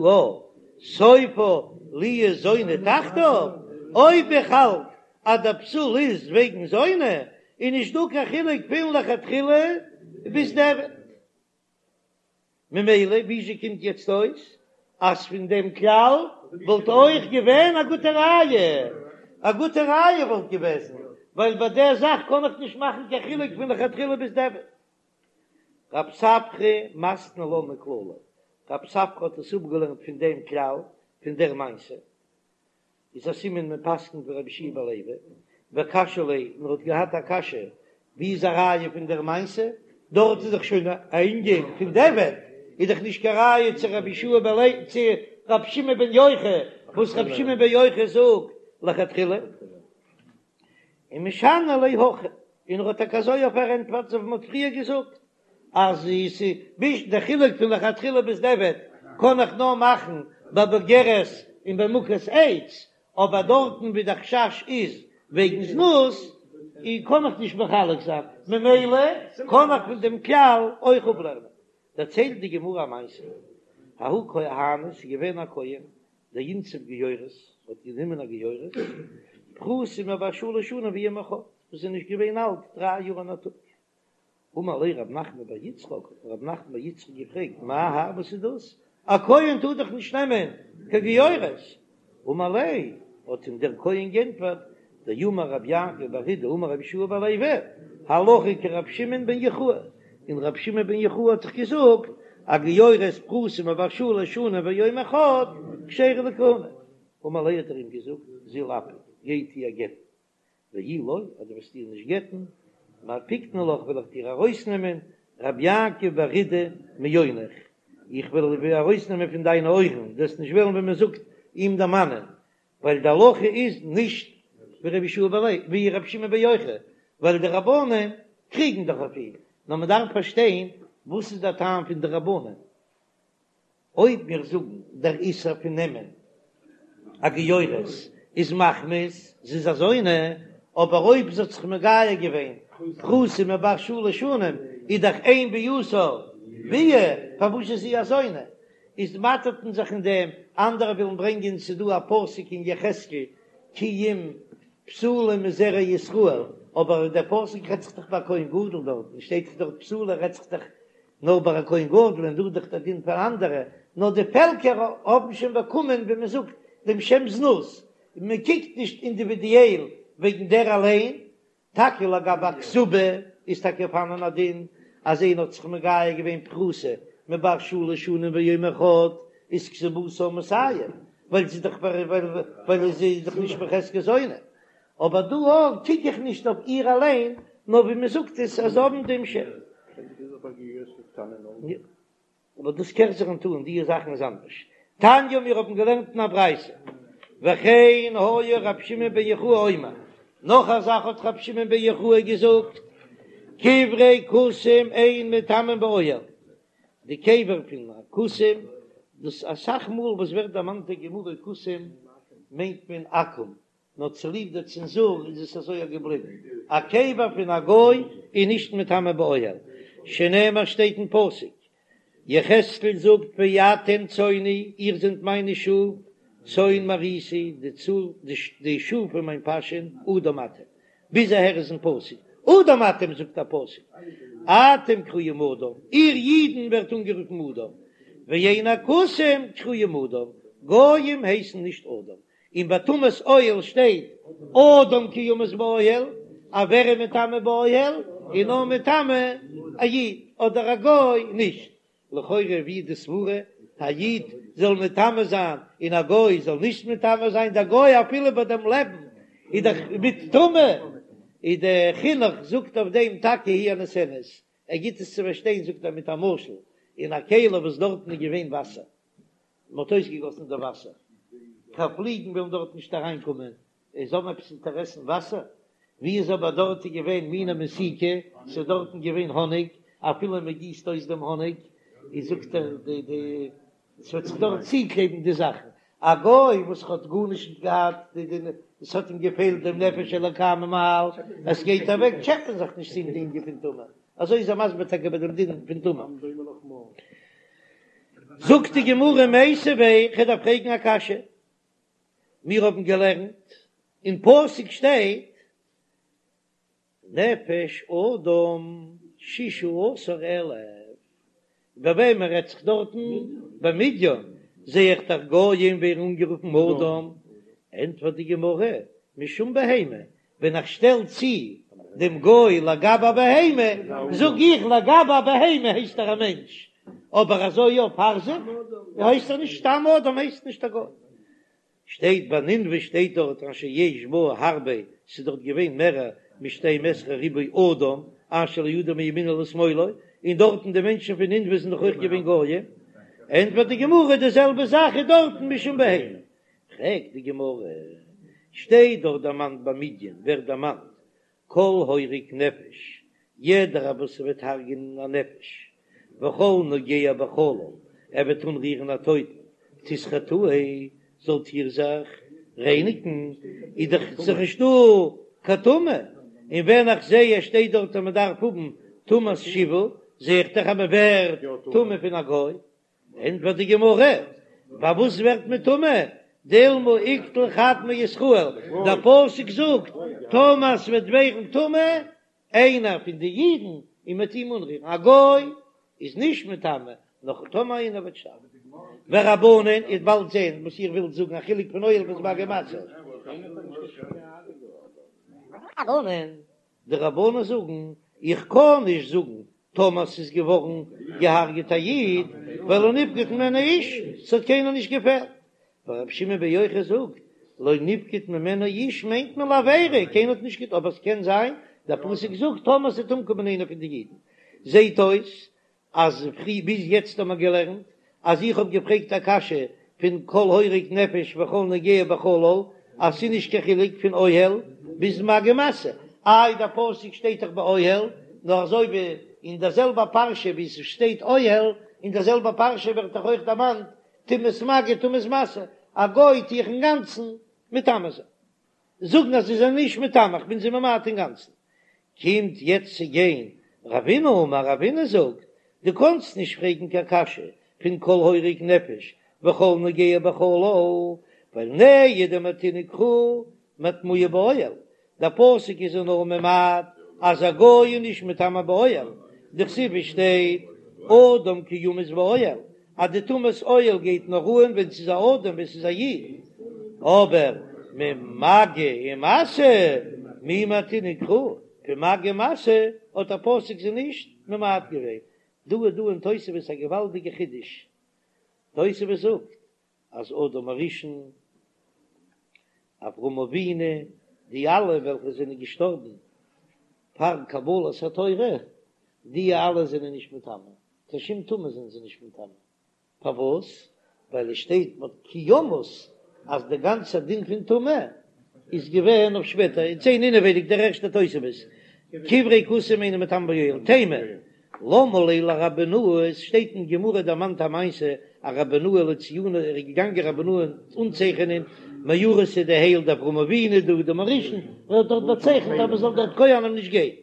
Speaker 1: סופה להיות זונה תחתיו, אויב איך האלט אז דער פסול איז וועגן זונה, איז נישט דא קיין חילוק פון לכתחילה ביז דיעבד. ממילא וויאזוי קומט יעצט אויס אז פון דעם כלל וואלט אויך געווען א גוטע ראיה? א גוטע ראיה וואלט געוועזן, ווייל ביי דער זאך קען איך נישט מאכן קיין חילוק פון לכתחילה ביז דיעבד. רב ספרא מתני לה מכללא, רב ספרא האט עס אפגעלערנט פון דעם כלל, פון דער מעשה. איז א סימן מען פסק'נט ווי רבי יהושע בן לוי. וקשיא ליה, און ער האט געהאט א קשיא, ווי איז א ראיה פון דער מעשה? דארט איז דאך שוין א ענין פון דיעבד, איז דאך נישט קיין ראיה צו רבי יהושע בן לוי צו רבי שמעון בן יוחאי, וואס רבי שמעון בן יוחאי זאגט לכתחילה. ומשני ליה הכי, און ער האט טאקע אזוי אויף פארענטפערט אזוי ווי מען האט פריער געזאגט, אז עס איז דער חילוק פון לכתחילה ביז דיעבד קען איך נאר מאכן ביי בוגרת און ביי מוכת עץ, אבער דארטן ווי דער חשש איז וועגן זנות קען איך נישט מחלק זיין, ממילא קען איך פון דעם כלל אויך אפלערנען. דערציילט די גמרא א מעשה, ההוא כהנא, ס'איז געווען א כהן דאינסיב גיורת, האט גענומען א גיורת, פחותה מבת שלש שנים ויום אחד, וואס איז נישט געווען אלט דריי יאר און א טאג. אמר ליה רב נחמן בר יצחק, האט רב נחמן בר יצחק געפרעגט, מאי האי, וואס איז דאס? א כהן טאר דאך נישט נעמען קיין גיורת. אמר ליה, האט אים דער כהן גענטפערט, דאמר רב יעקב בר אידי אמר רבי יהושע בן לוי, הלכה כרבי שמעון בן יוחאי, און רבי שמעון בן יוחאי האט דאך געזאגט, א גיורת פחותה מבת שלש שנים ויום אחד כשרה לכהונה. אמר ליה האט ער אים געזאגט, זיל אפיק, גיי טו איר גט'ן, ואי לא, אז דו וועסט איר נישט גט'ן, מפיקנא לך וועל איך דיר ארויסנעמען רבי יעקב בר אידי מאונך, איך וועל דיר ארויסנעמען פון דיינע אויערן, דו וועסט נישט וועלן ווען מען זאגט אים דערמאנען, ווייל די הלכה איז נישט ווי רבי יהושע בן לוי, ווי רבי שמעון בן יוחאי, ווייל די רבנן קריגן דאך אויף אים, נאר מען דארף פארשטיין וואס איז דער טעם פון די רבנן. אויב מיר זאגן דער איסור פון נעמען א גיורת איז מחמת זי איז א זונה, אבער אויב זי האט זיך מגייר געווען פחותה מבת שלש שנים איז דאך אין ביאתה ביאה, פארוואס איז זי א זונה? איז מאטערט מען זיך אין דעם, אנדערע ווילן ברענגען ס'איז דא א פסוק אין יחזקאל כי אם בתולה מזרע ישראל, אבער דער פסוק רעדט זיך דאך ביי כהן גדול דארטן שטייט דאך דארט בתולה רעדט זיך דאך נאר ביי א כהן גדול און דא איז דאך דער דין פאר אנדערע, נאר די פעלקער האבן שוין באקומען ווי מען זאגט דעם שם זנות, און מען קוקט נישט אינדיווידיעל וועגן דער אליין, טאקע לגבי א כתובה איז טאקע פארהאנען א דין אז איינער האט זיך מגייר געווען פחותה מבת שלש שנים ויום אחד איז כתובתה מאתים, ווייל זי איז דאך ווייל זי איז דאך נישט בחזקת זונה, אבער דא אויך קוק איך נישט אויף איר אליין, נאר ווי מען זאגט עס אז זיי האבן דעם שם. אבער דאס קערט זיך נישט אן, די זאכן איז אנדערש. תניא מיר האבן געלערנט אין א ברייתא, וכן היה רבי שמעון בן יוחאי אומר, נאך א זאך האט רבי שמעון בן יוחאי געזאגט, קברי כותים אין מטמאין באוהל, די קבר פון א כותים, דאס אסאך מאל וואס ווערט דערמאנט אין גמרא כותים מיינט מען עכו"ם, נאר צוליב די צענזור איז עס אזוי געבליבן, א קבר פון א גוי איז נישט מטמא באוהל, שנאמר שטייט אין פסוק, יחזקאל זאגט ואתם צאני, איר זענט מיינע שאף, צאן מרעיתי, די שאף פון מיין פאשען, אדם אתם, ביז אהער איז אין פסוק, אדם אתם זאגט א פסוק, אתם קרויים אדם, איר אידן ווערט אנגערופן אדם, ואין הכותים קרויים אדם, גויים הייסן נישט אדם, און ביי טומאת אוהל שטייט אדם כי ימות באוהל, אז ווער איז מטמא באוהל איז נאר מטמא א איד אדער א גוי נישט, לכאורה ווי איז די סברה א איד זאל מטמא זיין און א גוי זאל נישט מטמא זיין, דער גוי אפילו ביי דעם לעבן איז דאך מיט טומאה, איז דער חינוך זאגט אויף דעם טאקע היא הנותנת, ער גיט עס צו פארשטיין זאגט ער מיט א משל, אין א כלי וואס דארטן איז געווען וואסער, מען האט אויסגעגאסן די וואסער, קיין פליגן וועלן דארט נישט אריינקומען, זיי האבן עפעס אינטערעס אין וואסער? ווי איז אבער דארט איז געווען מינה מתיקה, ס'איז דארטן געווען האניג, אפילו מען גיסט אויס דעם האניג, איז זאגט ער די די ס'וועט זיך דארט צוקלעבן די זאכן, א גוי וואס האט גארנישט נישט געהאט, די די עס האט אים געפעלט דעם נפש אלוקה ממעל, עס גייט אוועק טשעפען זיך נישט צו אים די ענין פון טומאה. אזוי איז ער מסביר טאקע ביי דעם דין פון טומאה. זאגט די גמרא מיתיבי, כ'דארף פרעגן א קשיא, מיר האבן געלערנט אין פסוק שטייט נפש אדם ששה עשר אלף, ביי וועמען רעדט זיך דארטן? ביי מדין, זע איך דאך גויים ווערן אנגערופן אדם, ענטפערט די גמרא, משום בהמה, ווען איך שטעל צו דעם גוי לגבי א בהמה, זאג איך לגבי א בהמה הייסט ער א מענטש, אבער אזוי יא פאר זיך הייסט ער נישט, סתם אדם הייסט נישט א גוי. שטייט ביי נינוה שטייט דארט אשר יש בה הרבה, ס'איז דארט געווען מערער משתים עשרה ריבוא אדם אשר לא ידע מימינו לשמאלו, און דארטן די מענטשן פון נינוה זענען דאך אויך געווען גויים, ענטפערט די גמרא די זעלבע זאך איז דארטן משום בהמה. פרעגט די גמרא, שטייט דארט דערמאנט ביי מדין ווערט דערמאנט כל הורג נפש, יעדער וואס וועט הרג'ענען א נפש, וכל נוגע בחלל, ער וועט אנרירן א טויטן, תתחטאו, זאלט איר זיך רייניגן, איז דאך זיך נישטא קיין טומאה, און ווען איך זע עס שטייט דארט אז מען דארף האבן טומאת שבעה, זע איך דאך אז מען ווערט טמא פון א גוי. ענטפערט די גמרא, פארוואס ווערט מען טמא? דילמא איקטיל חד מישראל, דער פסוק זאגט, טאמער ס'וועט ווערן טמא איינער פון די אידן און מ'וועט אים אנרירן, א גוי איז נישט מטמא, נאר טאמער איינער וועט שטארבן. ורבנן, איר וועט באלד זען וואס איר ווילט זאגן, א חילוק פון אוהל ביז מגע ומשא. רבנן, די רבנן זאגן, איך קען נישט זאגן טאמער ס'איז געווארן געהארגעט א איד, ווייל לא נפקד ממנו איש, ס'האט קיינער נישט געפעלט. ורבי שמעון בן יוחאי זאגט, לא נפקד ממנו איש מיינט מען לעבירה, קיינער האט נישט געטון, אבער ס'קען זיין, דער פסוק זאגט טאמער ס'וועט אומקומען איינער פון די אידן. זעהט אויס אז פרי ביז יעצט האט מען געלערנט אז איך האב געפרעגט א קשיא פון כל הורג נפש וכל נוגע בחלל אז ס'איז נישט קיין חילוק פון אוהל ביז מגע ומשא, איי דער פסוק שטייט דאך באוהל, נאר אזוי ווי אין דער זעלבער פרשה ווי ס'שטייט אוהל, אין דער זעלבער פרשה ווערט דאך אויך דערמאנט טומאת מגע טומאת משא, א גוי טו איך אינגאנצן מטמא זיין. זאגן אז זיי זענען נישט מטמא, איך בין זיי ממעט אינגאנצן. קומט יעצט צו גיין רבינא אמר רבינא זאגט, דו קאנסט נישט פרעגן קיין קשיא פון כל הורג נפש וכל נוגע בחלל, ווייל נהי דמעטינהו קרא מטמויי באוהל, דער פסוק איז נאר ממעט אז א גוי איז נישט מטמא באוהל, דכתיב עס שטייט אדם כי ימות באוהל, אז די טומאת אוהל גייט נאר אן ווען ס'איז א אדם ווען ס'איז א איד, אבער ממגע ומשא מי מעטינהו קרא, פון מגע ומשא האט דער פסוק זיי נישט ממעט געווען. דא איז דא אין תוספות א געוואלדיגע חידוש, תוספות זאגט אז אדם הראשון, אברהם אבינו, די אלע וועלכע זענען געשטארבן פאר קבלת התורה, די אלע זענען נישט מטמא, קיין שום טומאה זענען זיי נישט מטמא, פארוואס? ווייל עס שטייט מ'האט כי ימות אז די גאנצע דין פון טומאה איז געווען אויף שפעטער, און זען אינעווייניג דער ערשטער תוספות, קברי כותים אינן מטמאין באוהל, תימה, למה ליה לרבי בנאה, עס שטייט אין גמרא דערמאנט א מעשה א רבי בנאה לציוני ער איז געגאנגען רבי בנאה אנצייכענען מערתא די הייל דאברהם אבינו דאדם הראשון, ער האט דארט באצייכנט אז מען זאל דארט כהנים נישט גיין.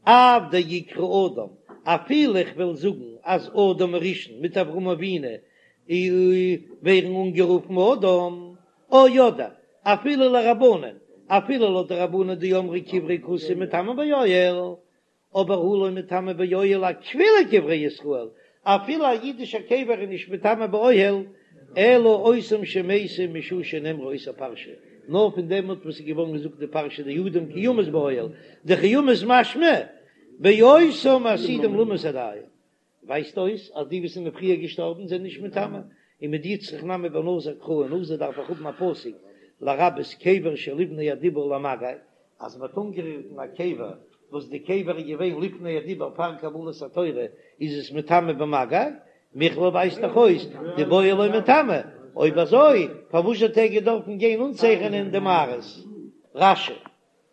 Speaker 1: אף דאיקרי אדם, אפילו איך וועל זאגן אז אדם הראשון מיט אברהם אבינו ווערן אנגערופן אדם, או אדער אפילו לרבנן, אפילו לויט די רבנן דאמרי קברי כותים מטמאין באוהל, אבער הא לא מטמא באוהל אפילו קברי ישראל, אפילו א אידישער קבר איז נישט מטמא באוהל, אלא אותם שמתו משעה שנאמרה אותה פרשה, נאר פון דעמאלט וואס איז געווארן געזאגט די פרשה דאדם כי ימות באוהל, דכי ימות משמע באותם העתידים למות עדיין, ווייזט אויס אז די וואס זענען פריער געשטארבן זענען נישט מטמא, ומדיצטריך נמי בנזיר קרא אין נזיר דארף איך האבן א פסוק לרבות קבר שלפני הדיבור למגע, אז מען האט אנגערירט אין א קבר וואס די קבר איז געווען לפני הדיבור פאר קבלת התורה איז עס מטמא במגע, מכלל ווייזט דאך אויס דבאוהל לא מטמא, אויב אזוי פארוואס האט ער געדארפן גיין אנצייכענען די מערות? רש"י.